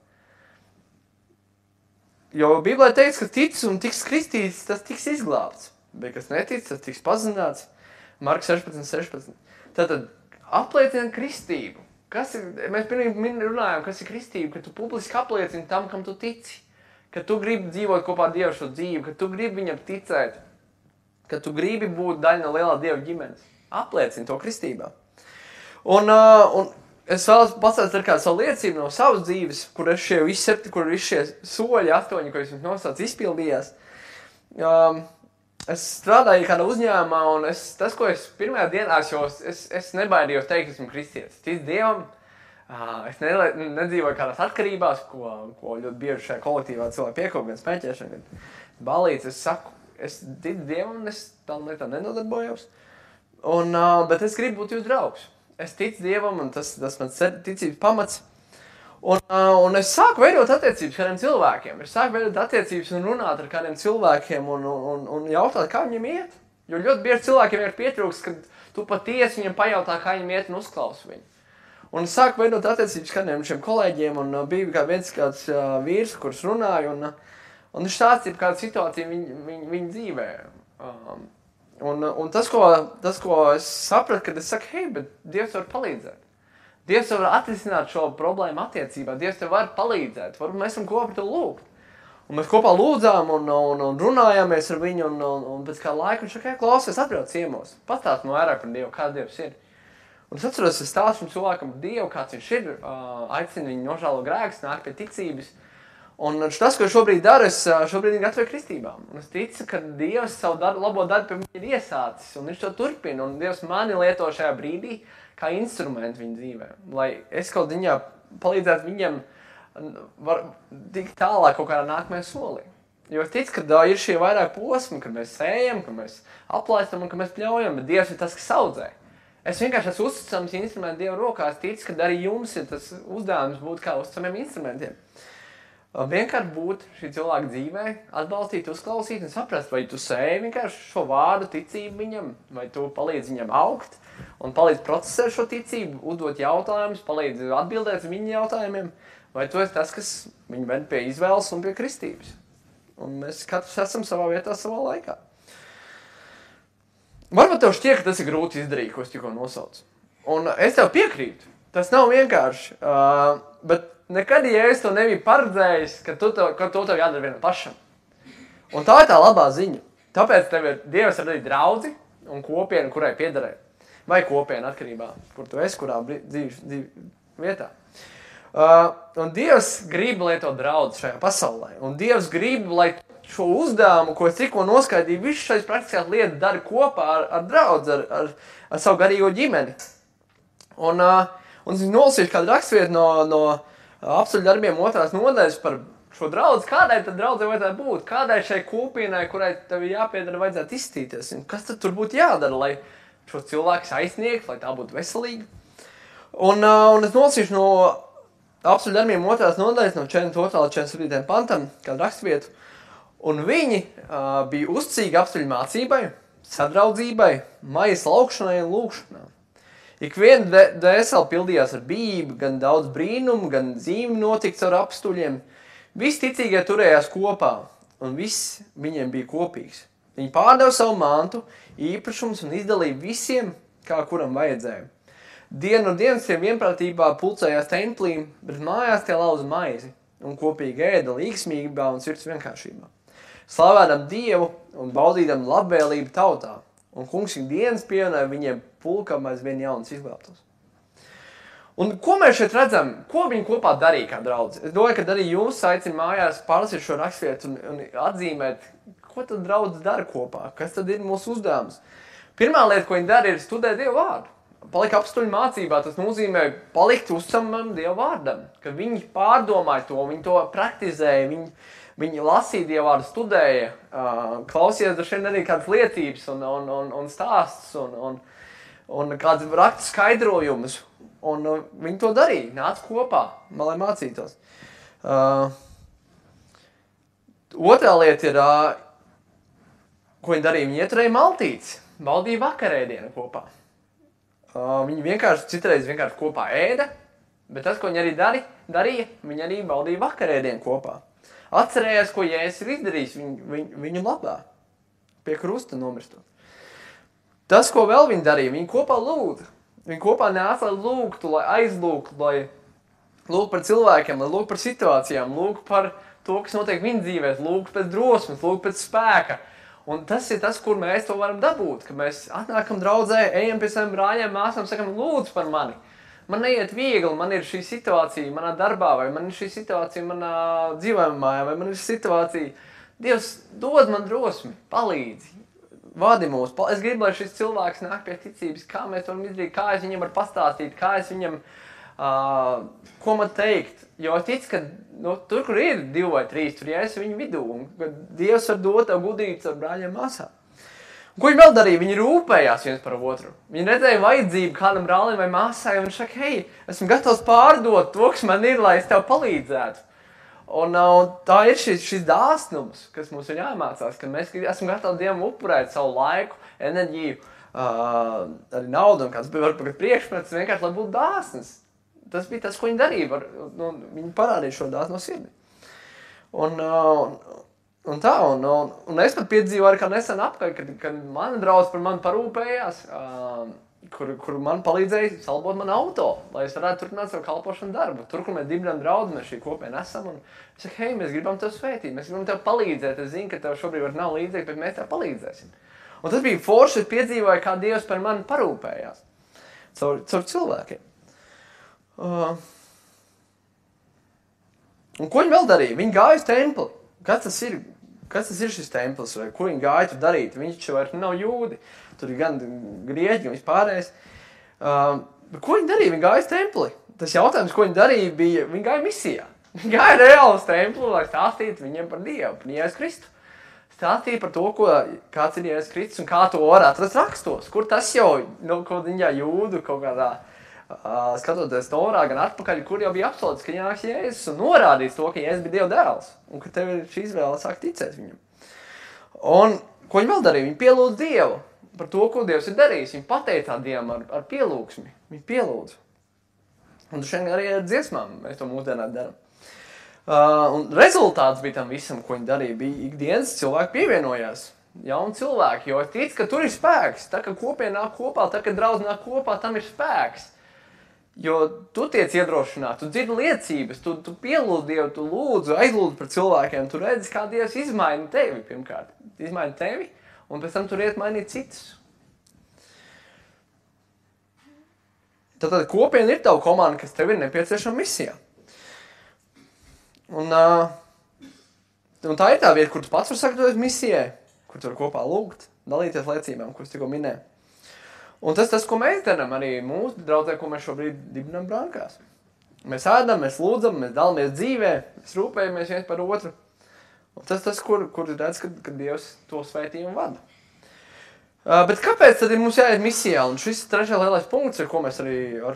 Jo Bībelē teiks, ka tic un tiks kristīts, tas tiks izglābts. Bet kas netic, tas tiks pazināts. Marka 16. Tātad apliecina kristību. Mēs pirmīgi runājam, kas ir kristība, ka tu publiski apliecini tam, kam tu tici. Ka tu gribi dzīvot kopā ar Dievu šo dzīvi, ka tu gribi viņam ticēt, ka tu gribi būt daļa no lielā Dieva ģimenes. Apliecini to kristībā. Un es vēlos pastāstīt ar kādu savu liecību no savas dzīves, kur visi šie soļi, 8, ko es jums nosaucu, izpildījās. Es strādāju kādā uzņēmumā, un tas, ko es pirmajā dienā, es nebaidījos teikt, esmu kristietis. Tic Dievam. Es nedzīvoju kādās atkarībās, ko ļoti bieži šajā kolektīvā cilvēki piekop, gan spēķēšana, gan balīts. Es saku, es ticu Dievam, un es tam lietām nenodarbojos. Bet es gribu būt jūs draugs. Es ticu Dievam, un tas mans ticības pamats. Un es sāku veidot attiecības kādiem cilvēkiem. Es sāku veidot attiecības un runāt ar kādiem cilvēkiem un jautāt, kā viņiem iet. Jo ļoti bieži cilvēkiem ir pietrūks, kad tu patiesi viņam pajautā, kā viņiem iet un uzklausi viņu. Un es sāku veidot attiecības kādiem šiem kolēģiem, un bija kāds vīrs, kurš runāja, un viņš stāstīja kādu situāciju viņa dzīvē. Un tas, ko es sapratu, kad es saku, hei, bet Dievs var palīdzēt. Dievs var atrisināt šo problēmu attiecībā, Dievs tev var palīdzēt, varbūt mēs varam kopā par to lūgt. Un mēs kopā lūdzām un runājāmies ar viņu, un pēc kā laika viņš saka, klausies, atbrauc ciemos, pastāst man vairāk par Dievu, kāds Dievs ir. Un es atceros, es stāstu cilvēkam par Dievu, kāds viņš ir, aicinu viņu nožēlo grēkus, nāk pie ticības. Un tas, ko šobrīd daru, es šobrīd viņu gatavoju kristībām. Un es ticu, ka Dievs savu labo darbu pie viņa ir iesācis, un viņš to turpina. Un Dievs mani lieto šajā brīdī kā instrumentu viņa dzīvē. Lai es kaut viņā palīdzētu viņam tikt tālāk kaut kādā nākamajā solī. Jo es ticu, ka ir šie vairāk posmi, kad mēs sējam, ka mēs aplaistam un ka mēs pļaujam, bet Dievs ir tas, kas audzē. Es vienkārši esmu uzticams instrumentu Dieva rokās, ticu, ka arī jums ir tas uzdevums būt kā uzticamiem instrumentiem. Vienkārši būt šī cilvēka dzīvē, atbalstīt, uzklausīt un saprast, vai tu sēji vienkārši šo vārdu ticību viņam, vai tu palīdzi viņam augt un palīdzi procesēt šo ticību, uzdot jautājumus, palīdzi atbildēt viņa jautājumiem, vai tu esi tas, kas viņu ved pie izvēles un pie kristības. Un mēs katrs esam savā vietā, savā laikā. Varbūt tev šķiet, ka tas ir grūti izdarīt, ko es tikko nosaucu. Un es tev piekrītu. Tas nav vienkārši. Bet nekad, ja es to nebiju paredzējis, ka to tev jādara vienam pašam. Un tā ir tā labā ziņa. Tāpēc tev ir Dievs radīt draudzi un kopienu, kurai piederē. Vai kopienu atkarībā, kur tu esi, kurā dzīves vietā. Un Dievs grib, lai to draudzi šajā pasaulē. Un Dievs grib, lai šo uzdevumu, ko es tikko noskaidīju, visu šais praktiskās lietas dara kopā ar draudzi, ar savu garīgo ģimeni. Un es nolasīšu kādu rakstvietu no apstuļu darbiem 2. nodaļas par šo draudzi. Kādai tad draudzei vajadzētu būt? Kādai šai kopienai, kurai tev jāpiedara, vajadzētu izstīties? Un kas tad tur būtu jādara, lai šo cilvēku aizsniegt, lai tā būtu veselīga? Un es nolasīšu no apstuļu darbiem 2. nodaļas, no 42. līdz 47. pantam, kādu rakstvietu. Un viņi bija uzticīgi apstuļu mācībai, sadraudzībai, maijas laukšanai un lūkšanām. Ik viena dvēsele pildījās ar bību, gan daudz brīnumu, gan zīmi notikts ar apstuļiem. Visi ticīgie turējās kopā, un viss viņiem bija kopīgs. Viņi pārdeva savu mantu, īpašumus un izdalīja visiem, kā kuram vajadzēja. Dienu no dienas tie vienprātībā pulcējās templī, bet mājās tie lauza maizi un kopīgi ēda līgsmībā un sirds vienkāršībā. Slavēdam Dievu un baudīdam labvēlību tautā, un kungs ikdienas pievienoja viņiem pulkam aizvien jaunas izglābtos. Un ko mēs šeit redzam? Ko viņi kopā darīja kā draudzi? Es domāju, ka arī jūs aicinu mājās pārlasīt šo rakstvietu un atzīmēt, ko tad draudzi dara kopā, kas tad ir mūsu uzdevums. Pirmā lieta, ko viņi dara, ir studēt Dievu vārdu. Palikt apstuļu mācībā, tas nozīmē palikt uzticamam Dievu vārdam, ka viņi pārdomāja to, viņi to praktizēja, viņi lasīja Dievu vārdu, studēja, klausījās droši vien arī kādas liecības un stāstus un kādas rakstu skaidrojumus. Un viņi to darīja, nāca kopā, lai mācītos. Otrā lieta ir, ko viņi darīja, viņi ieturēja maltītes, baudīja vakarēdienu kopā. Viņi citreiz vienkārši kopā ēda, bet tas, ko viņi arī darīja, viņi arī baudīja vakarēdienu kopā. Atcerējās, ko Jēzus ir izdarījis viņu labā, pie krusta nomirstot. Tas, ko vēl viņi darīja, viņi kopā lūdza. Viņi kopā nāca, lai lūgtu, lai aizlūgtu, lai lūgtu par cilvēkiem, lai lūgtu par situācijām, lūgtu par to, kas notiek viņa dzīvēs, lūgtu pēc drosmes, lūgtu pēc spēka. Un tas ir tas, kur mēs to varam dabūt, ka mēs atnākam draudzē, ejam pie saviem brāļiem, māsām, sakam, lūdzu par mani. Man neiet viegli, man ir šī situācija manā darbā, vai man ir šī situācija manā dzīvojumā mājā, vai man ir šī situācija. Dievs, dod man drosmi, palīdzi. Vadi mūs. Es gribu, lai šis cilvēks nāk pie ticības, kā mēs varam izdarīt, kā es viņam varu pastāstīt, kā es viņam, ko man teikt. Jo es ticu, ka tur, kur ir 2 vai 3, tur es viņu vidū, un kad Dievs var dot tev gudrības ar brāļiem māsām. Ko viņi vēl darīja? Viņi rūpējās viens par otru. Viņi redzēja vajadzību kādam brālim vai māsai, un viņš saka, hei, esmu gatavs pārdot to, kas man ir, lai es tev palīdzētu. Un tā ir šis dāsnums, kas mums ir jāmācās, ka mēs esam gatavi Dievam upurēt savu laiku, enerģiju, arī naudu un kāds bija varbūt priekšmets, vienkārši, lai būtu dāsns. Tas bija tas, ko viņi darīja. Viņi parādīja šo dāsnu no sirdi. Un es pat piedzīvoju kā nesen apkārt, kad mana draudze par mani parūpējās, kur man palīdzēja salbot man auto, lai es varētu turpināt savu kalpošanu darbu. Tur, kur mēs dibinām draudzi, mēs šī kopiena esam, un es saku, hei, mēs gribam tev svētīt, mēs gribam tev palīdzēt, es zinu, ka tev šobrīd nav līdzīgi, bet mēs tev palīdzēsim. Un tas bija forši, es piedzīvoju, kā Dievs par mani parūpējās caur cilvēkiem. Un ko viņi vēl darīja? Viņi gāja uz templi. Kas tas ir šis templis, vai ko viņi gāja tur darīt? Viņš vairs nav jūdi. Tur ir gan grieķi, gan vispārējais. Ko viņi darīja? Viņi gāja uz templi. Tas jautājums, ko viņi darīja, bija, viņi gāja misijā. Viņi gāja reāli uz templi, lai stāstītu viņiem par Dievu, par Jēzus Kristu. Stāstīja par to, kāds ir Jēzus Kristus un kā to var atrast rakstos. Kur tas jau, kaut viņā jūdu, kaut kādā, skatoties Torā, gan atpakaļ, kur jau bija apsolīts, ka jānāks Jēzus un norādīs to, ka Jēzus bija Dieva dēls. Un ka tev ir šī izvēle sāk ticēt viņam. Un ko viņi vēl darīja? Viņi pielūdz Dievu par to, ko Dievs ir darījis. Viņi pateicā Dievam ar pielūgsmi. Viņi pielūdz. Un šeit arī ar dziesmām mēs to mūsdienā darām. Un rezultāts bija tam visam, ko viņi darīja. Bija ikdienas cilvēki pievienojās. Jauni cilvēki, jo es ticu, ka tur ir spēks. Tā, ka kopiena nāk kopā, tā, ka draudz nāk kopā, tam ir spēks. Jo tu tiec iedrošināt, tu dzirdi liecības, tu pielūdz Dievu, tu lūdzu, aizlūdzu par cilvēkiem, tu redzi, kā Dievs izmaina tevi pirmkārt. Izmaina tevi, un pēc tam tur iet mainīt citus. Tātad kopiena ir tava komanda, kas tev ir nepieciešama misijā. Un tā ir tā vieta, kur tu pats var sagatavoties misijai, kur tu var kopā lūgt, dalīties liecībām, kuras tikko minēju. Un tas, ko mēs darām arī mūsu draudzē, ko mēs šobrīd dibinām Brankās. Mēs ēdam, mēs lūdzam, mēs dalāmies dzīvē, mēs rūpējamies viens par otru. Un tas, kur redz, ka Dievs to svētījumu vada. Bet kāpēc tad ir mums jāiet misijā? Un šis ir trešais lielais punkts, ar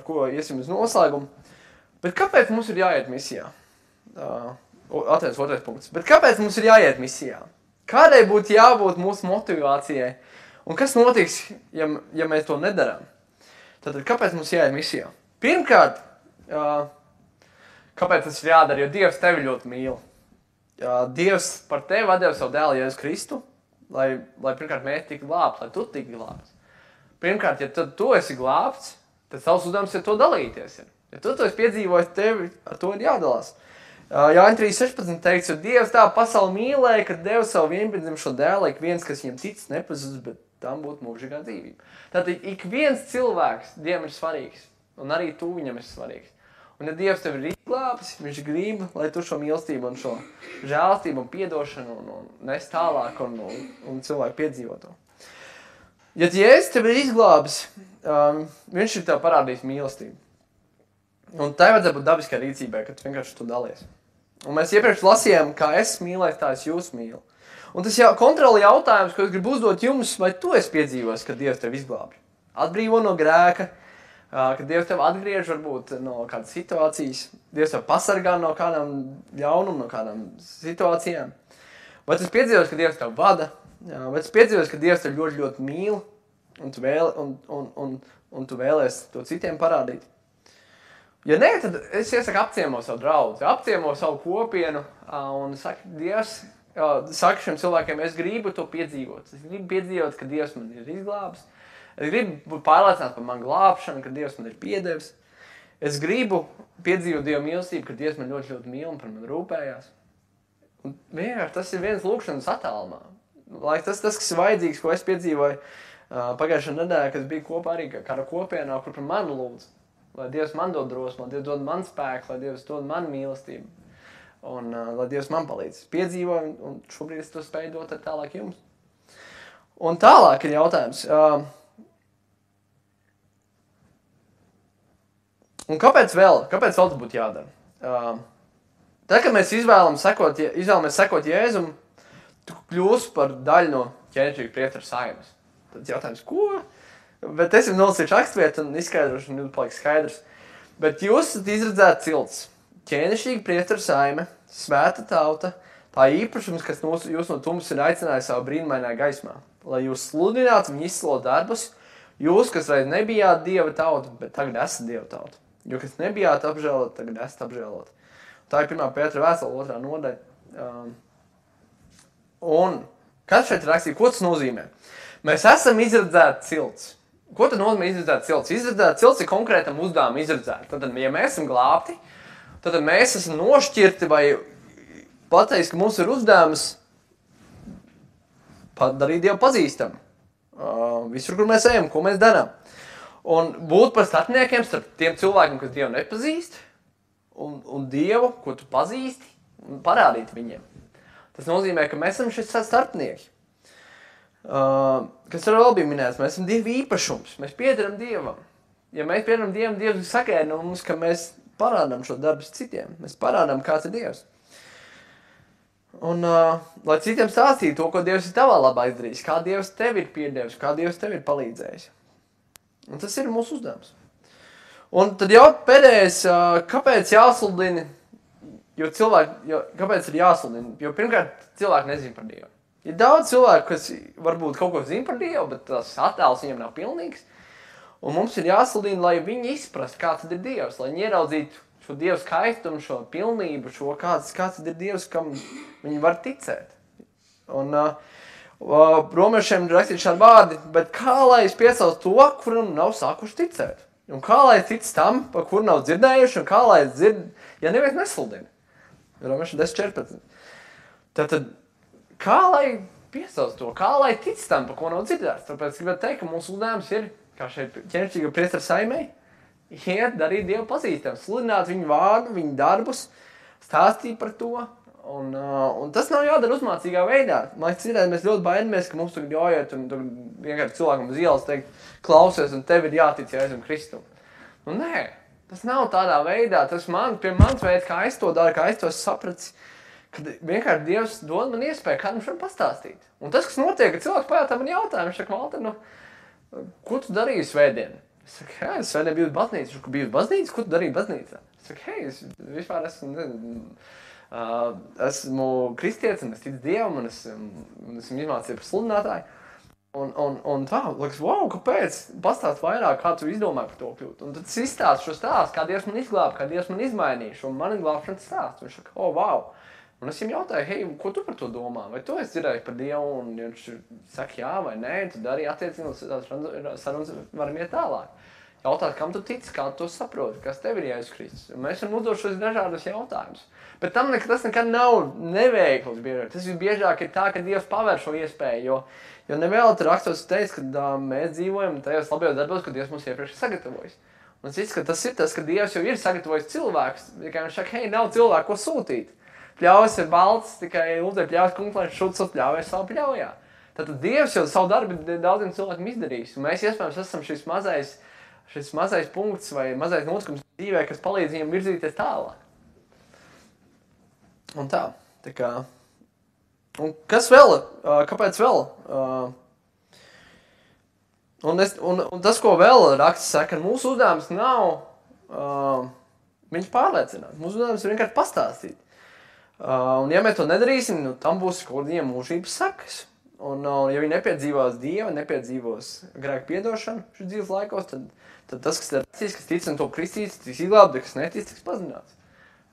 ko iesim uz noslēgumu. Bet kāpēc mums ir jāiet misijā? Atviens otrais punkts. Bet kāpēc mums ir jāiet misijā? Kādai būtu jābūt mūsu motivācijai? Un kas notiks, ja mēs to nedarām? Tātad, kāpēc mums jāiet misijā? Pirmkārt, kāpēc tas ir jādara? Jo Dievs tevi ļoti mīl. Dievs par tevi atdeva savu dēlu Jēzu Kristu, lai pirmkārt mēs tiktu glābti, lai tu tiktu glābts. Pirmkārt, ja tu esi glābts, tad savs uzdevums ir to dalīties. Ja tu esi piedzīvojis, tevi ar to ir jādalās. Jāņa 3.16 teikts, jo Dievs tā pasauli mīlēja, ka deva savu vienpiedzimušo dēlu, ik viens, kas viņam tic, nepazudis, bet tam būtu mūžīgā dzīvība. Tātad ik viens cilvēks Dievam ir svarīgs. Un arī tu viņam esi svarīgs. Un ja Dievs tev ir izglābis, viņš grib, lai tu šo mīlestību un šo žēlastību un piedošanu un nes tālāk un cilvēku piedzīvo to. Ja Jēzus tev ir izglābis, viņš ir tev parādījis mīlestību. Un tai vajadzētu būt dabiskai rīcībai, kad tu vienkārši to dalies. Un mēs iepriekš lasījām, kā es mīlēju, tā es jūs mīlu. Un tas kontroli jautājums, ko es gribu uzdot jums, vai tu esi piedzīvojis, kad Dievs tev izglābj? Atbrīvo no grēka, kad Dievs tev atgriež varbūt no kādas situācijas, Dievs tev pasargā no kādām ļaunuma, no kādām situācijām. Vai tu esi piedzīvojis, ka Dievs tev vada? Vai tu esi piedzīvojis, ka Dievs tev ļoti, ļoti mīl un tu vēlies to citiem parādīt? Ja nē, tad es iesaku apciemo savu draudzi, apciemo savu kopienu un saku, Dievs, saka šiem cilvēkiem, es gribu to piedzīvot. Es gribu piedzīvot, ka Dievs man ir izglābis. Es gribu būt pārliecināts par manu glābšanu, ka Dievs man ir piedevis. Es gribu piedzīvot Dieva mīlestību, ka Dievs man ļoti, ļoti mīl un par mani rūpējās. Un vienkārši tas ir viens lūkšanas attālumā. Lai tas, kas ir vajadzīgs, ko es piedzīvoju pagājušajā nedēļā, kad bija kopā arī kāda kopienā, kur par mani lūdz. Lai Dievs man dod drosmu, lai Dievs dod man spēku, lai Dievs dod man mīlestību. Un lai Dievs man palīdz. Piedzīvoju, un šobrīd es to spēju dot tālāk jums. Un tālāk ir jautājums. Un kāpēc vēl tas būtu jādara? Tad, kad mēs izvēlamies sekot Jēzum, tu kļūsi par daļu no ķēnišķīga priestera saimes. Tad jautājums, ko? Bet es jau nolasīšu rakstvietu un izskaidrošu, un jums paliks skaidrs. Bet jūs esat izredzēti cilts, ķēnišķīga priestera saime, svēta tauta, tā īpašums, kas jūs no tums ir aicinājis savu brīnumainā gaismā, lai jūs sludinātu un izslo darbus, jūs, kas reiz nebijāt Dieva tauta, bet tagad esat Dieva tauta. Jo, kas nebijāt apžēlot, tagad esat apžēlot. Tā ir 1. Pētera vēstule 2. nodaļa. Un kas šeit rakstīja, ko tas nozīmē? Mēs esam izredzēti cilts. Ko tad nozīmē izredzēt cilts? Izredzēt cilts ir konkrētam uzdevumam izredzēt. Tad, ja mēs esam glābti, tad mēs esam nošķirti vai pateiks, ka mums ir uzdevums padarīt Dievu pazīstam. Visur, kur mēs ejam, ko mēs darām. Un būt par starpniekiem starp tiem cilvēkiem, kas Dievu nepazīst, un Dievu, ko tu pazīsti, un parādīt viņiem. Tas nozīmē, ka mēs esam šis starpnieki. Kas vēl bija minēts, mēs esam Dieva īpašums, mēs piederam Dievam. Ja mēs piederam Dievam, Dievs sagaida no mums, ka mēs parādām šo darbus citiem, mēs parādām, kāds ir Dievs. Un, lai citiem stāstītu to, ko Dievs ir tavā labā izdarījis, kā Dievs tev ir piedevis, kā Dievs tev ir palīdzējis. Un tas ir mūsu uzdevums. Un tad jau pēdējais, kāpēc jāsludina, kāpēc ir jāsludina? Jo pirmkārt, cilvēki nezin par Dievu. Ir daudz cilvēku, kas varbūt kaut ko zina par Dievu, bet tas attēls viņam nav pilnīgs. Un mums ir jāsludina, lai viņi izprast, kā tad ir Dievs, lai viņi ieraudzītu šo Dievu skaistumu, šo pilnību, šo kāds tad ir Dievs, kam viņi var ticēt. Un romiešiem ir rakstīt šādi vārdi, bet kā lai es piesaucu to, kuram nav sākuši ticēt? Un kā lai tic tam, par kuru nav dzirdējuši, un kā lai dzird, ja neviens nesludina? Romieši 10.14. Tātad, kā lai piesauc to, kā lai tic tam, par ko nav dzirdēts? Tāpēc gribētu teikt, ka mūsu uzdevums ir, kā šeit ķēnišķīga priestera saimei, iet darīt Dievu pazīstam, sludināt viņu vārdu, viņu darbus, stāstīt par to. Un tas nav jādara uzmācīgā veidā. Man liekas, mēs ļoti baidamies, ka mums tagad jāiet un vienkārši cilvēkam uz ielas teikt, klausies, un tev ir jātic Jēzum Kristum. Nu nē, tas nav tādā veidā. Tas mans veids, kā es to daru, kā es to sapratu, kad vienkārši Dievs dod man iespēju kādam šodien pastāstīt. Un tas, kas notiek, ka cilvēks pajautā man jautājumu, viņš saka, Valter, ko tu darīji svētdien? Es saku, hei, es svētdien biju uz baznīcu. Viņš saka, biju uz baznīcu? Ko tu darīji baznīcā? Es saku, hei, es vispār esmu kristietis, un es ticu Dievam, un esmu izmācījies par sludinātāju. Un tā, liekas, wow, kāpēc? Pastāst vairāk, kā tu izdomāji par to kļūt. Un tad es izstāstu šo stāstu, kā Dievs man izglāba, kā Dievs man izmainīja šo mani glābšanas stāstu. Viņš saka, wow. Un es viņam jautāju, hei, ko tu par to domā? Vai tu esi dzirdējis par Dievu? Un viņš saka, jā vai nē, tad arī attiecīgi sarunas varam iet tālāk. Jautāt, kam tu tici, kā tu to saproti, kas tev ir Jēzus Kristus. Un mēs varam uzdot šos dažādus jautājumus. Bet tas nekad nav neveikls biežāk. Tas visbiežāk ir tā, ka Dievs paver šo iespēju, jo nevēl rakstos teikt, ka mēs dzīvojam tajos labajos darbos, ko Dievs mums iepriekš sagatavojas. Un es izskatu, tas ir tas, ka Dievs jau ir sagatavojis cilvēkus. Tikai viņš saka, hei, nav cilvēku, ko sūtīt. Pļaujas ir balts, tikai lūdzu pļaujas kungs, lai šuts pļaujas savu pļaujā. Tātad Dievs jau savu darbu daudziem cilvēkiem izdarījis. Un mēs iespējams esam šis mazais punkts vai mazais notikums dzīvē, kas palīdz viņam virzīties tālāk. Un tā kā. Un kas vēl? Kāpēc vēl? Un tas, ko vēl raksts saka, mūsu uzdevums nav viņus pārliecināt. Mūsu uzdevums ir vienkārši pastāstīt. Un ja mēs to nedarīsim, tam būs kaut kādiem mūžības sakas. Un ja viņi nepiedzīvos Dievu, nepiedzīvos grēku piedošanu šīs dzīves laikos, tad tas, kas ir rakstīts, kas tic un to kristīts, tiks izglābts, kas netic, tiks pazināts.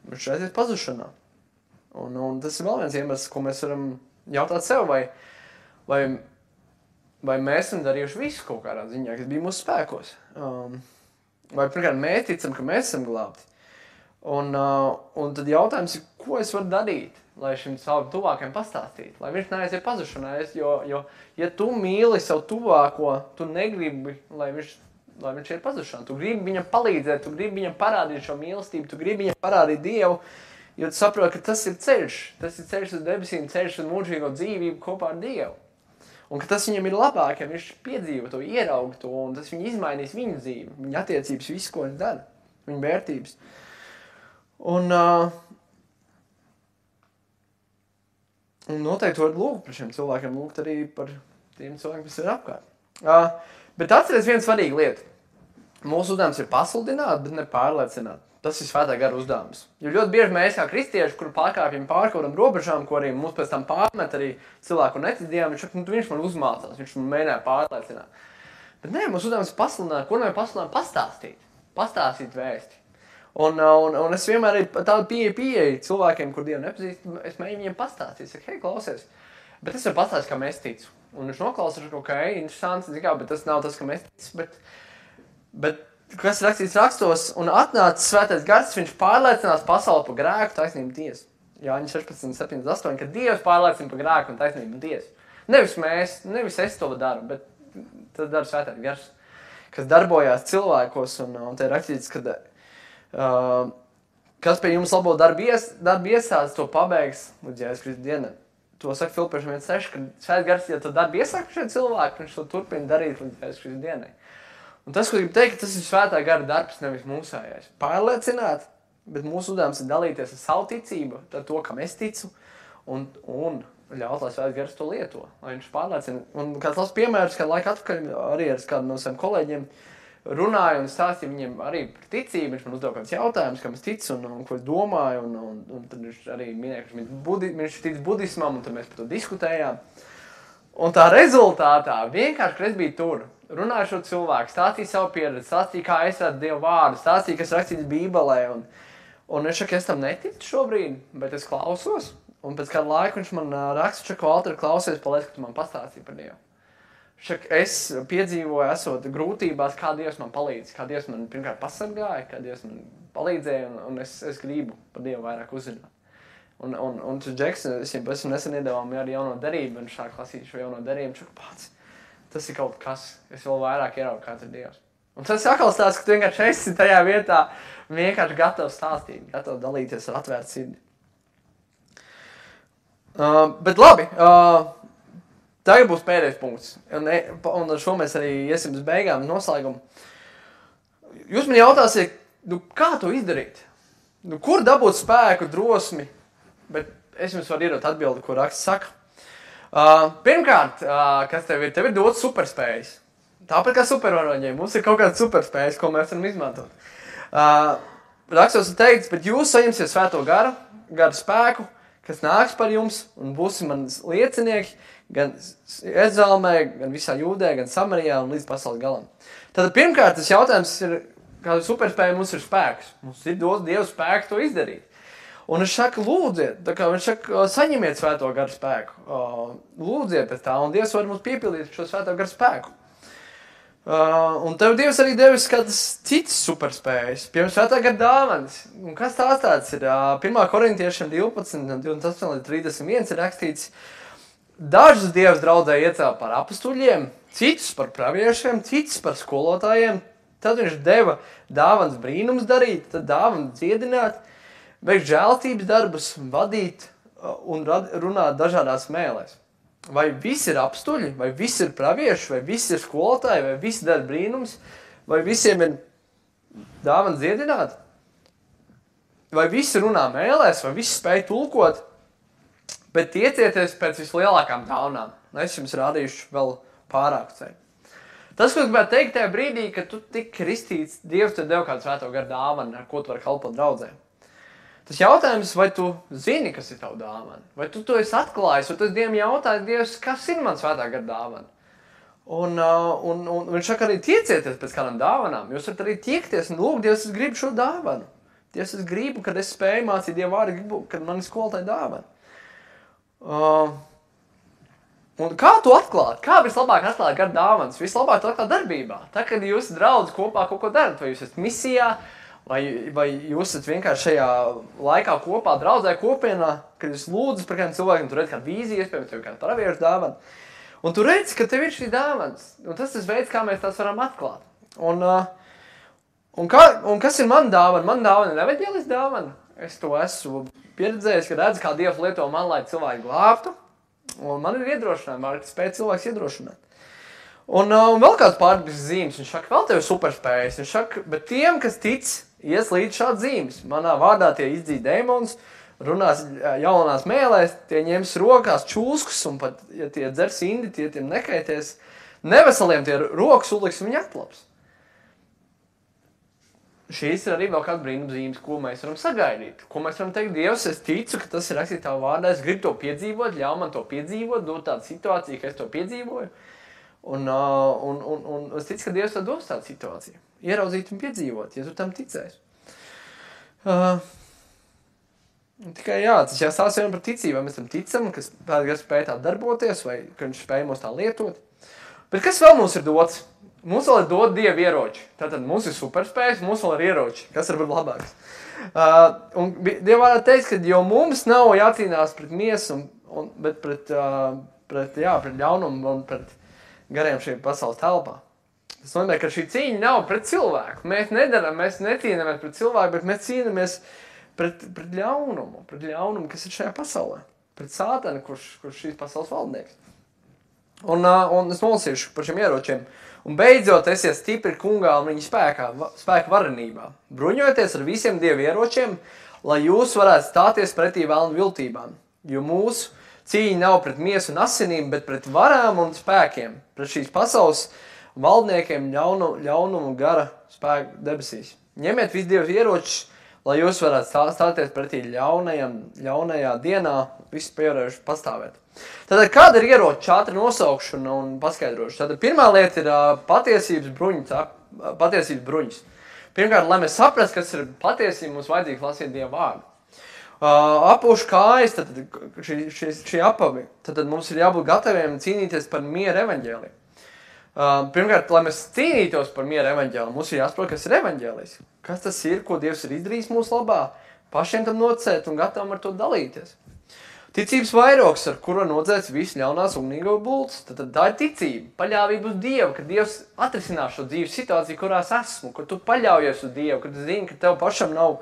Viņš aizies pazušanā. Un tas ir vēl viens iemesls, ko mēs varam jautāt sev, vai mēs esam darījuši visu kaut kādā ziņā, kas bija mūsu spēkos. Vai pirmkārt mēs ticam, ka mēs esam glābti. Un tad jautājums ir, ko es varu darīt, lai šim savam tuvākajam pastāstītu, lai viņš neaiziet pazušanā. Jo, ja tu mīli savu tuvāko, tu negribi, lai viņš ir pazušanā. Tu gribi viņam palīdzēt, tu gribi viņam parādīt šo mīlestību, tu gribi viņam parādīt Dievu, jo tu saproti, ka tas ir ceļš uz debesīm, ceļš uz mūžīgo dzīvību kopā ar Dievu. Un ka tas viņam ir labāk, ja viņš piedzīvo to, ieraug to, un tas viņu izmainīs viņu dzīvi, viņa attiecības, visu, ko viņš dara, viņa vērtības. Un noteikti var lūgt par šiem cilvēkiem, lūgt arī par tiem cilvēkiem, kas ir apkārt. Bet atceries vienu svarīgu lietu. Mūsu uzdevums ir pasludināt, bet ne pārliecināt. Tas ir svētā gara uzdevums. Jo ļoti bieži mēs kā kristieši, kur pārkāpjam pār kaut kādām robežām, ko arī mums pēc tam pārmet arī cilvēku netic Dievam, viņš man uzmācās, viņš man mēģināja pārliecināt. Bet nē, mūsu uzdevums ir pasludināt, ko nevar pasludināt? Pastāstīt vēsti. Un es vienmēr arī tādu pieeju cilvēkiem, kur Dievu nepazīst, es mēģinu viņiem pastāstīt. Saku, hei, klausies, bet es varu pastāstīt, kā mēs ticu. Un viņš noklausās, ka, interesants, bet tas nav tas, ka mēs ticu. Bet kas rakstīts rakstos, un atnāca svētais gars, viņš pārliecinās pasauli par grēku, taisnību tiesu. Jāņa 16, 78, ka Dievs pārliecina par grēku un taisnību tiesu. Nevis es to daru, bet tas dara svētais gars, kas darbojās cilvēkos, un te ir rakstīts, ka kas pie jums labo darbu iesāds, to pabeigs līdz Jēzus Kristus dienai. To saka Filipiešiem 1.6, ka svētais gars, ja to darbu iesāk šie cilvēki, viņš to turpina darīt līdz Jēzus Kristus dienai. Un tas, ko gribu teikt, tas ir svētā gara darbs, nevis mūsējais. Pārliecināt, bet mūsu uzdevums ir dalīties ar savu ticību, ar to, kam es ticu, un ļaut, lai svētais gars to lieto, lai viņš pārliecina. Un kāds labs piemērs, kad laika atpakaļ arī ar kādu no saviem kolēģiem runāju un stāstīju viņiem arī par ticību, viņš man uzdeva kāds jautājums, kam es ticu un ko es domāju, un tad viņš arī minēja, ka viņš tic budismam, un tad mēs par to diskutējām. Un tā rezultātā, vienkārši, kad es biju tur, runāju šo cilvēku, stāstīju savu pieredzi, stāstīju, kā es redzu Dievu vārdu, stāstīju, kas rakstīts Bībelē, un viņš saka, es tam neticu šobrīd, bet es klausos, un pēc kādu laiku viņš man raksta, Valter, klausies, paldies, ka tu man pastāstīji par Dievu. Es piedzīvoju, esot grūtībās, kā Dievs man palīdz, kā Dievs man pirmkārt pasargāja, kā Dievs man palīdzēja, un es gribu par Dievu vairāk uzzināt. Un Džeks, es viņam esmu nesen iedevām arī jauno derību, un šā klasīt šo jauno derību, viņš pats, tas ir kaut kas, es vēl vairāk ieraugu, kāds ir Dievs. Un tas atkal stāsts, ka tu vienkārši esi tajā vietā, vienkārši gatavs stāstīt, gatavs dalīties ar atvērtu sirdi. Bet labi, tagad būs pēdējais punkts, un ar šo mēs arī iesim uz beigām, noslēgumu. Jūs man jautāsiet, kā to izdarīt? Kur dabūt spēku, drosmi? Bet es jums varu iedot atbildi, ko raksts saka. Pirmkārt, kas tev ir dots superspējas. Tāpat kā supervaroņiem, mums ir kaut kādas superspējas, ko mēs varam izmantot. Rakstos ir teikts, bet jūs saņemsiet svēto garu spēku, kas nāks par jums un būsim manas liecinieki, gan Jeruzālēmē, gan visā Jūdē, gan Samarijā un līdz pasaules galam. Tātad pirmkārt, tas jautājums ir, kāda superspēja mums ir spēks. Mums ir dots Dieva spēks to izdarīt. Un viņš saka, lūdziet, viņš saka, saņemiet svēto garu spēku. Lūdziet pēc tā, un Dievs var mums piepildīt šo svēto garu spēku. Un tev Dievs arī devis kādas citas superspējas, piemēram, svētā gara dāvanas. Un kas tās tāds ir? 1. Korintiešiem 12, 28 līdz 31 ir rakstīts, dažus Dievs draudzē iecēla par apustuļiem, citus par praviešiem, citus par skolotājiem, Tad viņš deva dāvanas brīnums darīt, tad dāvanas dziedināt, veikt žēlstības darbus, vadīt un runāt dažādās mēlēs. Vai visi ir apstuļi, vai visi ir pravieši, vai visi ir skolotāji, vai visi dara brīnums, vai visiem ir dāvana dziedināt, vai visi runā mēlēs, vai visi spēj tulkot, bet tiecieties pēc vislielākām dāvanām. Es jums rādīšu vēl pārāku ceļu. Tas, ko es gribētu teikt tajā brīdī, kad tu tik kristīts, Dievs tev deva kādu svēto garu dāvanu, ar ko tu vari kalpot draudzē. Tas jautājums, vai tu zini, kas ir tavu dāvana? Vai tu to esi atklājis, vai tu esi Dievam jautājis, Dievs, kas ir man svētā gara dāvana? Un viņš saka arī tiecieties pēc kādām dāvanām. Jūs varat arī tiekties un lūgt, Dievs, es gribu šo dāvanu. Dievs, es gribu, kad es spēju mācīt Dievu vārdu, gribu, kad man ir skolotāja dāvana. Un kā tu atklāt? Kā vislabāk atklāt gara dāvanas? Vislabāk to atklāt darbībā. Tā, kad jūs draudz kopā kaut ko darat, vai jūs esat misijā, vai jūs esat vienkārši šajā laikā kopā, draudzē kopienā, kad jūs lūdzat par kādiem cilvēkiem, tu redz kādu vīziju, iespējams, tev kādu praviešu dāvanu. Un tu redzi, ka tev ir šī dāvanas. Un tas ir veids, kā mēs tās varam atklāt. Un kas ir man dāvana? Man dāvana ir evaņģēlis dāvana. Es to esmu pieredzējis, ka redzu, kā Dievs lieto man, lai cilvēki glābtu. Un man ir iedrošinājumi, var spēt cilvēks iedrošināt. Un vēl kāds pārdības zīmes, viņš saka, vēl tev ir superspējas. Viņš saka, bet tiem, kas tic, ies līdz šāds zīmes. Manā vārdā tie izdzīt dēmons, runās jaunās mēlēs, tie ņems rokās čūskus, un pat, ja tie dzers indi, tie tiem nekaities. Neveseliem tie rokas uliks, un viņi atlaps. Šīs ir arī vēl kāda brīnumzīmes, ko mēs varam sagaidīt. Ko mēs varam teikt, Dievs, es ticu, ka tas ir rakstīts tavā vārdā, es gribu to piedzīvot, ļauj man to piedzīvot, dot tādu situāciju, ka es to piedzīvoju. Un es ticu, ka Dievs tev dos tādu situāciju. Ieraudzīt un piedzīvot, ja tu tam ticēsi. Tikai jā, tas jāstāsta vienam par ticību, vai mēs tam ticam, ka Pēters spēj tā darboties, vai ka viņš spēj mūs tā lietot. Bet kas vēl mums ir dots? Mums vēl ir dot Dieva ieroči. Tātad mums ir superspējas, mums vēl ir ieroči. Kas var būt labāks? Un Dieva vārdā teiks, ka jo mums nav jācīnās pret miesu, bet pret ļaunumu un pret gariem šī pasaules telpā. Tas nozīmē, ka šī cīņa nav pret cilvēku. Mēs necīnāmies pret cilvēku, bet mēs cīnāmies pret ļaunumu, kas ir šajā pasaulē. Pret sātanu, kurš šīs pasaules valdnieks. Un es nolasīšu par šiem ieročiem. Un beidzot esiet stipri kungā un viņa spēka varenībā. Bruņojieties ar visiem Dieva ieročiem, lai jūs varētu stāties pretī vēlnu viltībām. Jo mūsu cīņa nav pret miesu un asinīm, bet pret varām un spēkiem, pret šīs pasaules valdniekiem ļaunumu gara spēku debesīs. Ņemiet visu Dieva ieročus, lai jūs varētu stāties pretī ļaunajā dienā, visu pierējuši pastāvēt. Tātad, kāda ir ieroča ātri nosaukšana un paskaidrošana? Tātad, pirmā lieta ir patiesības bruņas. Pirmkārt, lai mēs saprastu, kas ir patiesība, mums vajadzīgi lasīt Dieva vārdu. Apūšu kājas, tad šī apavi. Tad mums ir jābūt gataviem cīnīties par miera evaņģēliju. Pirmkārt, lai mēs cīnītos par miera evaņģēliju, mums ir jāsaprot, kas ir evaņģēlijs. Kas tas ir, ko Dievs ir izdarījis mūsu labā, pašiem tam nocēt un gatavam ar to dalīties. Ticības vairogs, ar kuru nocēts visu ļaunās ugnīgo bultas. Tad tā ir ticība, paļāvība uz Dievu, ka Dievs atrisinās šo dzīves situāciju, kurās esmu, ka tu paļaujies uz Dievu, ka tu zini, ka tev pašam nav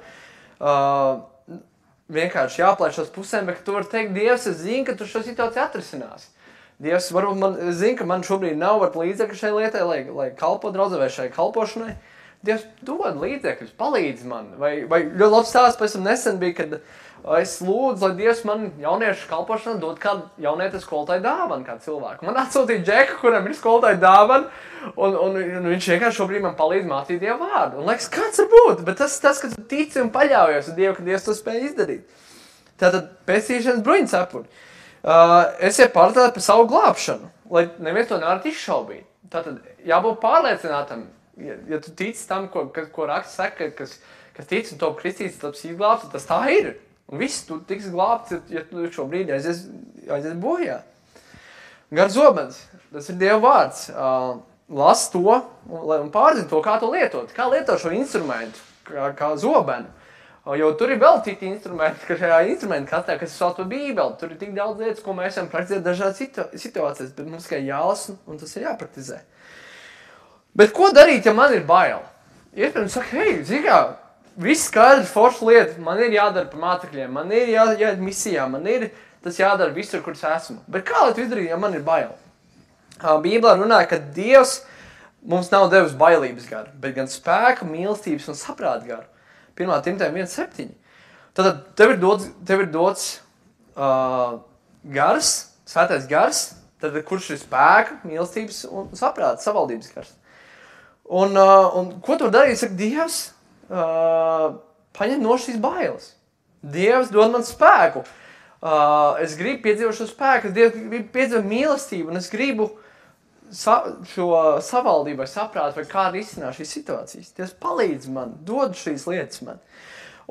vienkārši jāplēš uz pusēm, bet ka tu vari teikt, Dievs, es zinu, ka tu šo situāciju atrisinās. Dievs, varbūt man zina, ka man šobrīd nav līdzekļu šai lietai, lai kalpo draudzē vai šai kalpošanai. Dievs dod līdzekļus, palīdz man. Vai ļoti labs stāsts pēc tam nesen bija, kad es lūdzu, lai Dievs man jauniešu kalpošanā dod kādu jaunietes skolotāju dāvanu, kādu cilvēku. Man atsūtīja Džeku, kuram ir skolotāju dāvana, un viņš vienkārši šobrīd man palīdz mācīt Dievu vārdu. Un liekas, kāds var būt? Bet tas, ka tu tici un paļaujies uz Dievu, ka Dievs to spēj izdarīt. Tātad pestīšanas bruņas apuri. Esiet pārliecināti par savu glābšanu, lai neviens to nevar izšaubīt. Tātad jābūt pārliecinātam, ja tu tici tam, ko raksts saka, kas tic un top kristīts, taps izglābts, tas tā ir. Un viss, tu tiks glābts, ja tu šobrīd aizies bojā. Gar zobens, tas ir Dieva vārds. Las to un pārzini to, kā to lietot. Kā lietot šo instrumentu, kā zobenu. Jo tur ir vēl citi instrumenti, ka šajā instrumentu kastē, kas ir saucama Bībeli. Tur ir tik daudz lietas, ko mēs varam praktizēt dažādas situācijas, bet mums tikai jālasa un tas ir jāpraktizē. Bet ko darīt, ja man ir bail? iespējams saka, hei, zini kā, viss skaidrs, forša lieta, man ir jādara par mācekļiem, man ir jāiet misijā, man ir tas jādara visur, kur es esmu. Bet kā lai tu izdarītu, ja man ir bail? Bībelē runāja, ka Dievs mums nav devis bailības garu, bet gan spēku, mīlestības un saprāta garu. 1. Timotejam 1,7. Tad tev ir dots gars, svētais gars, tad kurš ir spēka, mīlestības un saprāta, savaldības gars. Un ko tu darīt? Saka, Dievs paņem no šīs bailes. Dievs dod man spēku. Es gribu piedzīvot šo spēku, es gribu piedzīvot mīlestību, un es gribu šo savaldību vai saprātu, vai kā risināt šīs situācijas. Dievs palīdz man, dod šīs lietas man.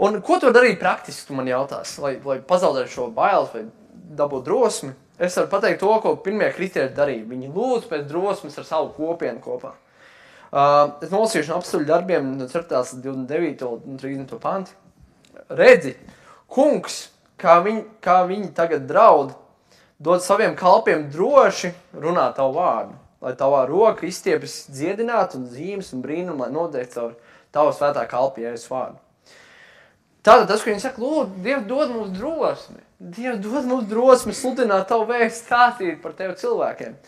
Un ko tu darīt praktiski, tu man jautās, lai pazaudētu šo bailes vai dabūt drosmi? Es varu pateikt to, ko pirmie kristieši darīja. Viņi lūdz pēc drosmes ar savu kopienu kopā. Es nolasīšu no apstuļu darbiem no 4. 29. un 30. panti. Redzi, kungs, kā viņi tagad draud, dod saviem kalpiem droši runāt tavu vārdu, lai tavā roka izstiepjas dziedināt un zīmes un brīnumu, lai noteikti caur tavu svētā kalpa Jēzus vārdu. Tātad tas, ko viņi saka, lūdzu, Dievs dod mums drosmi. Dievs dod mums drosmi sludināt tavu vēstu, stāstīt par tevi cilvēkiem.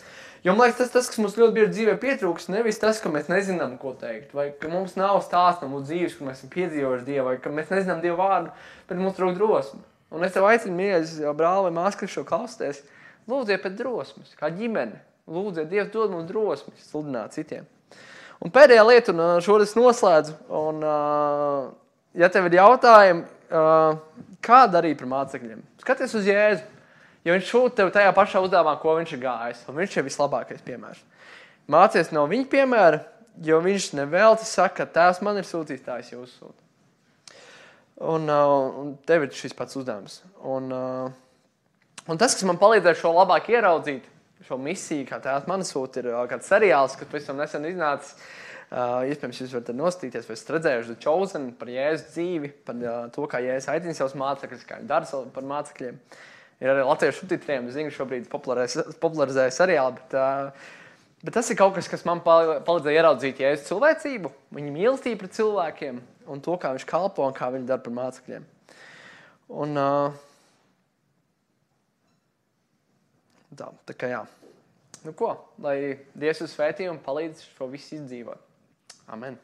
Jo, man liekas, tas, kas mums ļoti bieži dzīvē pietrūks, nevis tas, ka mēs nezinām, ko teikt, vai ka mums nav stāsts no mūsu dzīves, kur mēs esam piedzīvojuši Dievu, vai ka mēs nezinām Dievu vārdu, bet mums trūk drosmi. Un es tev aicinu, mīļais brāli vai māsa, kas šo klausties, lūdziet pēc drosmes, kā ģimene. Lūdziet, Dievs dod mums drosmi sludināt citiem. Un pēdējā lieta, un šodien noslēdzu, un ja tev ir jautājumi, kā darīt par mācekļiem? Skaties uz Jēzu. Ja viņš šūt tev tajā pašā uzdevumā, ko viņš ir gājis, un viņš ir vislabākais piemērs. Mācies no viņa piemēra, jo viņš nevelti saka, tēvs man ir sūtījis, tā es jūs sūtu. Un tev ir šis pats uzdevums. Un tas, kas man palīdzēja šo labāk ieraudzīt, šo misiju, kā tēvs man sūta, ir kāds seriāls, kas pavisam nesen iznācis. Iespējams, jūs varat nostīties, vai esat redzējuši The Chosen par Jēzus dzīvi, par to, kā Jēzus aicina savus mācekļus, kā viņš dara par mācekļiem. Ir arī latviešu subtitriem, es zinu, šobrīd popularizēja seriāli, bet tas ir kaut kas, kas man palīdzēja ieraudzīt Jēzus cilvēcību, viņa mīlestību pret cilvēkiem un to, kā viņš kalpo un kā viņš dara par mācekļiem. Un tā kā jā. Nu ko, lai Dievs uz svētī un palīdz šo visu izdzīvot. Amen.